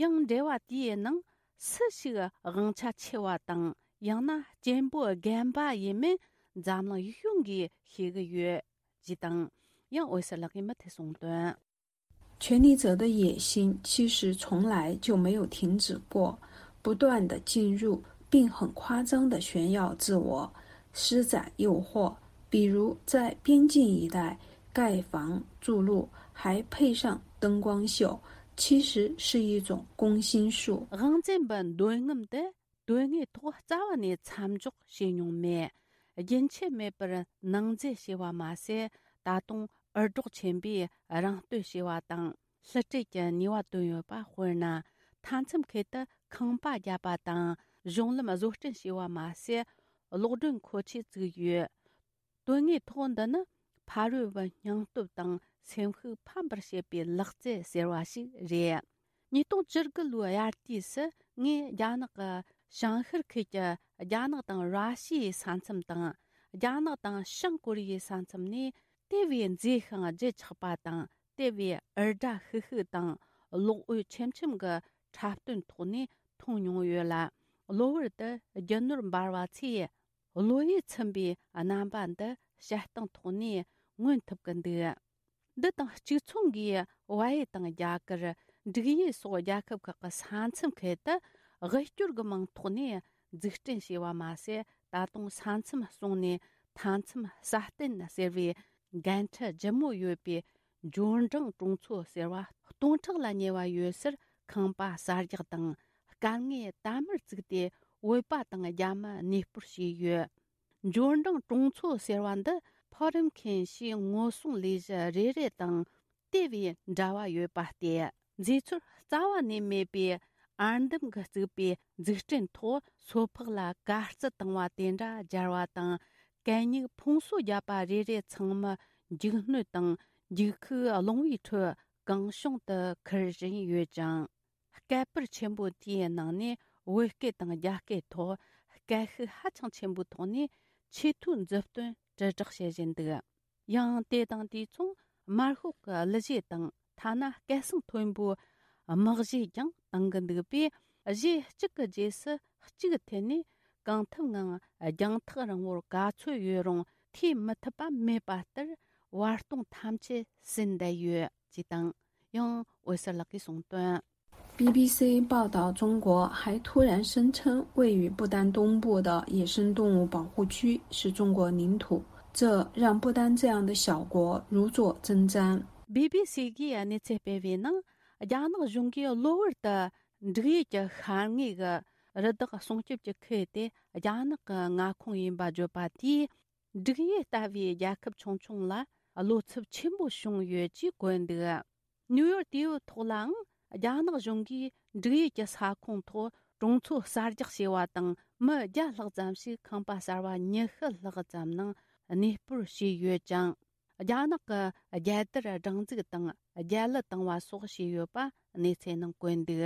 ཡང་འབྲེལ་བ་དེའི་ནང་སུ་ཞིག་དབང་ཆ་ཆེ་བ་དང་། ཡང་ན་གཅེན་པོ་རྒན་པ་ཡིན་མིན་འཛམ་གླིང་ཡིད་གཞུང་གིས་ཤེས་ཀྱི་ཡོད། ཅེས་དང་། ཡང་འོད་ཟེར་ལགས་ཀྱིས་མུ་མཐུད་གསུངས་དོན།权力者的野心其实从来就没有停止过，不断地进入，并很夸张地炫耀自我，施展诱惑，比如在边境一带盖房筑路，还配上灯光秀，其实是一种攻心术。 དབང་འཛིན་པའི་འདོད་རྔམ་དེ་དོན་དངོས་ཐོག་རྩ་བ་ནས་མཚམས་འཇོག་བྱས་མྱོང་མེད། རྒྱུན་ཆད་མེད་པར་ནང་འཛུལ་བྱས་པ་མ་ཟད། ད་དུང་འུར་སྒྲོག་ཆེན་པོས་རང་བསྟོད་བྱས་པ་དང་། བསླུ་བྲིད་ཀྱི་ནུས་པ་བཏོན་ཡོད་པ། དཔེར་ན། མཐའ་མཚམས་ཁུལ་དུ་ཁང་པ་བརྒྱབ་པ་དང་། གཞུང་ལམ་བཟོ་སྐྲུན་བྱས་པ་མ་ཟད། གློག་སྒྲོན་མཁོ་ཆས་བཙུགས་ཡོད། དོན་དངོས་ཐོག་འདི་ནི་ཕ་རོལ་པོའི་སྙིང་སྟོབས་དང་སེམས་ཤུགས་ཕམ་པར་བྱེད་པའི་ལག་རྩལ་ཟེར་བ་ཞིག་རེད། ཉིས་སྟོང་བཅུ་དགུ་ལོའི་དབྱར་དུས་སུ་ངས་རྒྱ་ནག་གི་བྱང་ཤར་ཁུལ་གྱི་རྒྱ་ནག་དང་ར་ཤི་ཡའི་ས་མཚམས་དང་ རྒྱ་ནག་དང་བྱང་ཀོ་རི་ཡའི་ས་མཚམས་ནས་དེ་བས་མཛེས་ཤིང་བརྗིད་ཆགས་པ་དང་། དེ་བས་འུར་སྒྲ་ཤིག་ཤིག་དང་གློག་འོད་ཆེམ་ཆེམ་གྱི་འཁྲབ་སྟོན་ཐོག་ནས་མཐོང་མྱོང་ཡོད་ལ། གློ་བུར་དུ་རྒྱུ་ནོར་འབར་བ་ཚོས་བློ་ཡིད་ཚིམ་པའི་རྣམ་པ་འདི་བྱེད་སྟངས་ཐོག་ནས་མངོན་ཐུབ་ཀྱི་འདུག་འདི་དང་གཅིག་མཚུངས་ཀྱིས་བལ་ཡུལ་དང་རྒྱ་གར། འབྲུག་ཡུལ་སོགས་རྒྱལ་ཁབ་ཁག་གི་ས་མཚམས་ཁུལ་དུ་དབུལ་སྐྱོར་གྱི་མིང་ཐོག་ནས་འཛུགས་སྐྲུན་བྱས་པ་མ་ཟད། ད་དུང་ས་མཚམས་བསྲུངས་ནས་མཐའ་མཚམས་སྲ་བརྟན་ཟེར་བའི་འགན་འཁྲི་ལྗིད་མོ་ཡོད་པའི་འབྱོར་འབྲིང་གྲོང་ཚོ་ཟེར་བ་སྟོང་ཕྲག་ལ་ཉེ་བ་ཡོད་སར་ཁང་པ་གསར་རྒྱག་དང་། དཀའ་ངལ་དལ་མོར་བརྩིས་ཏེ་བོད་པ་དང་རྒྱ་མི་གནས་སྤོར་བྱས་ཡོད། འབྱོར་འབྲིང་གྲོང་ཚོ་ཟེར་བ་འདི་ཕོ་རིམ་མཁན་ཞེས་ངོ་སྲུང་ལས་གཞི་རེ་རེ་དང་དེ་བས་འབྲེལ་བ་ཡོད་པ་སྟེ། མཛེས་ཚོར་རྩ་བ་ནས་མེད་པའི་ཨར་འདམ་གྱིས་བཙུགས་པའི་འཛུགས་སྐྲུན་ཐོག་སོ་ཕག་ལ་དཀའ་སྤྱད་བཏང་བ་དེ་འདྲ་སྦྱར་བ་དང་། གད་སྙིགས་ཕུང་གསོ་བརྒྱབ་པ་རེ་རེ་ཚང་མ་འཇིགས་སྣོད་དང་འཇིགས་ཤུགས་རླུང་བུའི་ཁྲོད་གང་བྱུང་དུ་ཁུར་བཞིན་ཡོད་ཅིང་། སྐད་པར་ཆེན་པོ་དེའི་ནང་ནས་བོད་སྐད་དང་རྒྱ་སྐད་ཐོག་སྐད་ཤུགས་ཧ་ཅང་ཆེན་པོའི་ཐོག་ནས་ཆེས་མཐོའི་མཛུབ་སྟོན་དྲིལ་བསྒྲགས་བྱེད་བཞིན་འདུག་ཡང་དེ་དང་དུས་མཚུངས་དམར་ཤོག་གི་གླུ་གཞས་དང་ཐ་ན་སྐད་གསང་མཐོན་པོའི་དམག་གཞས་ཀྱང་གཏང་གི་འདུག་པས། གཞས་གཅིག་གི་རྗེས་སུ་གཅིག་འཐེན་ནས་གང་ཐུབ་ངང་རྒྱང་ཐག་རིང་བོར་ག་ཚོད་ཡོད་རུང་ཐོས་མི་ཐུབ་པ་མེད་པ་ལྟར་བར་སྟོང་ཐམས་ཅད་ཟིན་བསྡད་ཡོད་ཅེས་དང་། ཡང་འོད་ཟེར་ལགས་ཀྱིས་གསུངས་དོན། B B C 报道，中国还突然声称位于不丹东部的野生动物保护区是中国领土，这让不丹这样的小国如坐针毡。B B C གིས་གནས་ཚུལ་སྤེལ་བའི་ནང་། རྒྱ་ནག་གཞུང་གིས་གློ་བུར་དུ་འབྲུག་ཡུལ་གྱི་ཤར་ངོས་ཀྱི་རི་དྭགས་སྲུང་སྐྱོབ་ཀྱི་ཁུལ་དེ་རྒྱ་ནག་གི་མངའ་ཁོངས་ཡིན་པ་བརྗོད་པ་དེས། འབྲུག་ཡུལ་ལྟ་བུའི་རྒྱལ་ཁབ་ཆུང་ཆུང་ལ་བློ་འཚབ་ཆེན་པོ་བྱུང་ཡོད་ཅེས་བཀོད་འདུག་ནིའུ་ཡོག་དེའི་ཐོག་ལའང་རྒྱ་ནག་གཞུང་གིས་འབྲུག་ཡུལ་གྱི་ས་ཁོངས་ཐོག་གྲོང་ཚོ་གསར་རྒྱག་བྱས་པ་དང་། མི་བརྒྱ་ལྷག་ཙམ་ཞིག་ཁང་པ་གསར་བ་ཉི་ཤུ་ལྷག་ཙམ་ནང་གནས་སྤོར་བྱས་ཡོད་ཅིང་། རྒྱ་ནག་གི་རྒྱལ་དར་སྒྲེང་འཛུགས་དང་རྒྱལ་གླུ་བཏང་བ་སོགས་བྱས་ཡོད་པ་གནས་ཚུལ་ནང་བཀོད་འདུག་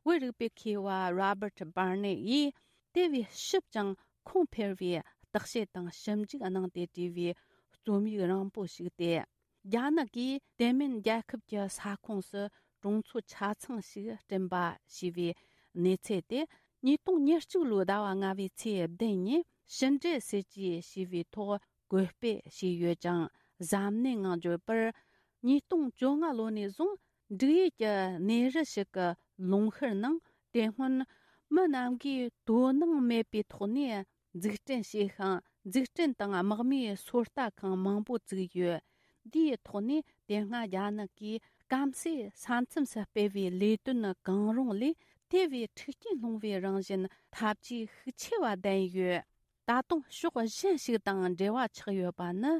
བོད་རིག་པའི་མཁས་པ་Robert Barnett ཡིས་དེ་བས་ཞིབ་ཅིང་ཁུངས་འཕེར་བའི་བརྟག་དཔྱད་དང་ཞིབ་འཇུག་གནང་སྟེ་བྲིས་པའི་རྩོམ་ཡིག་རིང་པོ་ཞིག་སྟེ། རྒྱ་ནག་གིས་དེ་མིན་རྒྱལ་ཁབ་ཀྱི་ས་ཁོངས་སུ་གྲོང་ཚོ་ཆ་ཚང་ཞིག་བསྐྲུན་པ་ཞེས་པའི་གནས་ཚུལ་དེ་ཉིས་སྟོང་ཉེར་གཅིག་ལོའི་ཟླ་བ་ལྔ་པའི་ཚེས་བདུན་ཉིན་ཕྱི་འབྲེལ་སྲིད་ཇུས་ཞེས་པའི་ཐོག་བཀོད་སྤེལ་བྱས་ཡོད་ཅིང་། གཟབ་ནན་ངང་བརྗོད་པར། ཉིས་སྟོང་བཅོ་ལྔ་ལོ་ནས་བཟུང་འབྲུག་ཡུལ་གྱི་གནས་རི་ཞིག་གི་ལུང་ཤུར་ནང་དེ་སྔོན་མི་རྣམས་ཀྱིས་དོ་སྣང་མེད་པའི་ཐོག་ནས་འཛུགས་སྐྲུན་བྱས་ཤིང་། འཛུགས་སྐྲུན་དང་དམག་མིའི་སོ་ལྟ་ཁང་མང་པོ་བཙུགས་ཡོད། འདིའི་ཐོག་ནས་དེ་སྔ་རྒྱ་ནག་གིས་སྐམ་སའི་ས་མཚམས་སུ་སྤེལ་བའི་ལས་དོན་གང་རུང་ལས་དེ་བས་མཁྲེགས་སྐྱེན་སློང་བའི་རང་བཞིན་ཐབས་ཇུས་ཤུགས་ཆེ་བ་ལྡན་ཡོད། ད་དུང་ཕྱོགས་གཞན་ཞིག་དང་འབྲེལ་བ་ཆགས་ཡོད་པ་ནི།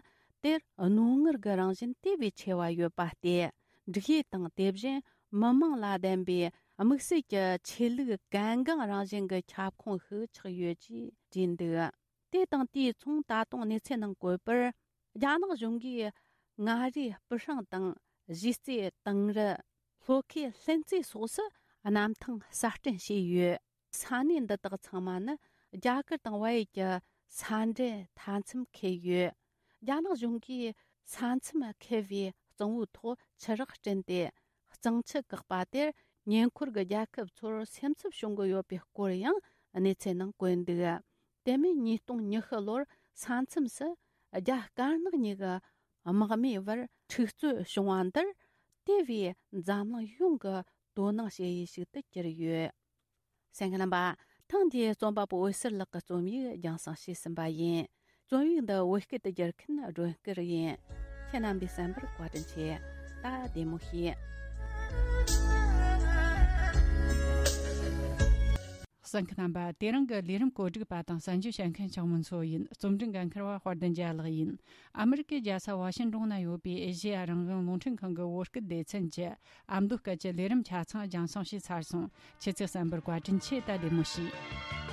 དེར་རྣོ་ངར་གྱི་རང་བཞིན་དེ་བས་ཆེ་བ་ཡོད་པ་སྟེ། འབྲུག་ཡུལ་དང་དེ་བཞིན་མི་དམངས་ལ་ལྡན་པའི་དམིགས་བསལ་གྱི་ཆོས་ལུགས་གལ་འགངས་རང་བཞིན་གྱི་ཁྱབ་ཁོངས་ཤིག་ཆགས་ཡོད་ཅེས་བྲིས་འདུག་དེ་དང་དུས་མཚུངས། ད་དུང་གནས་ཚུལ་ནང་བཀོད་པར། རྒྱ་ནག་གཞུང་གིས་མངའ་རིས་སྤུ་ཧྲེང་དང་གཞིས་རྩེ་དིང་རི། ལྷོ་ཁའི་ལྷུན་རྩེ་སོགས་སུ་གནམ་ཐང་གསར་སྐྲུན་བྱས་ཡོད། ས་གནས་འདི་དག་ཚང་མ་ནི་རྒྱ་གར་དང་བལ་ཡུལ་གྱི་ས་འབྲེལ་མཐའ་མཚམས་འཁེལ་ཡོད། རྒྱ་ནག་གཞུང་གིས་ས་མཚམས་འཁེལ་བའི་གཙང་བོའི་ཐོག་ཆུ་རགས་བསྐྲུན་ཏེ། གཙང་ཆུ་བཀག་པ་དེར་ཉེ་འཁོར་གྱི་རྒྱལ་ཁབ་ཚོར་སེམས་འཚབ་བྱུང་གི་ཡོད་པའི་སྐོར་ཡང་གནས་ཚུལ་ནང་བཀོད་འདུག་དེ་མིན་ཉིས་སྟོང་ཉི་ཤུ་ལོར་ས་མཚམས་སུ་རྒྱ་དཀར་ནག་གཉིས་ཀྱི་དམག་མིའི་བར་འཁྲུག་རྩོད་བྱུང་བ་འདིར། དེ་བས་འཛམ་གླིང་ཡོངས་ཀྱི་དོ་སྣང་བྱེད་ཡུལ་ཞིག་ཏུ་གྱུར་ཡོད། གསན་མཁན་རྣམ་པ། ཐེངས་འདིའི་རྩོམ་པ་པོ་འོད་ཟེར་ལགས་ཀྱི་རྩོམ་ཡིག་རྒྱང་སྲིང་བྱས་ཟིན་པ་ཡིན། རྩོམ་ཡིག་འདི་བོད་སྐད་དུ་བསྒྱུར་མཁན་སྒྲོན་སྐུར་ཡིན། ཁྱེད་རྣམ་པས་གསན་པར་བཀའ་དྲིན་ཆེ། ད་བདེ་མོ་བྱོས། གསན་མཁན་རྣམ་པ། དེ་རིང་གི་ལས་རིམ་གོ་སྒྲིག་པ་དང་གསན་རྒྱུ་བྱེད་མཁན་ཆང་མོ་མཚོ་ཡིན། རྩོམ་སྒྲིག་འགན་འཁུར་བ་དཔལ་ལྡན་རྒྱལ་ལགས་ཡིན། ཨ་མི་རི་ཀའི་རྒྱལ་ས་ཝ་ཤིང་ཏོན་ན་ཡོད་པའི་ཨེ་ཤེ་ཡ་རང་དབང་རླུང་འཕྲིན་ཁང་གི་བོད་སྐད་སྡེ་ཚན་གྱི་ཨ་མདོ་སྐད་ཀྱི་ལས་རིམ་ཆ་ཚང་རྒྱང་སྲིང་བྱས་ཚར་སོང་། ཁྱེད་ཚོས་གསན་པར་བཀའ་དྲིན་ཆེ། ད་བདེ་མོ་བྱོས།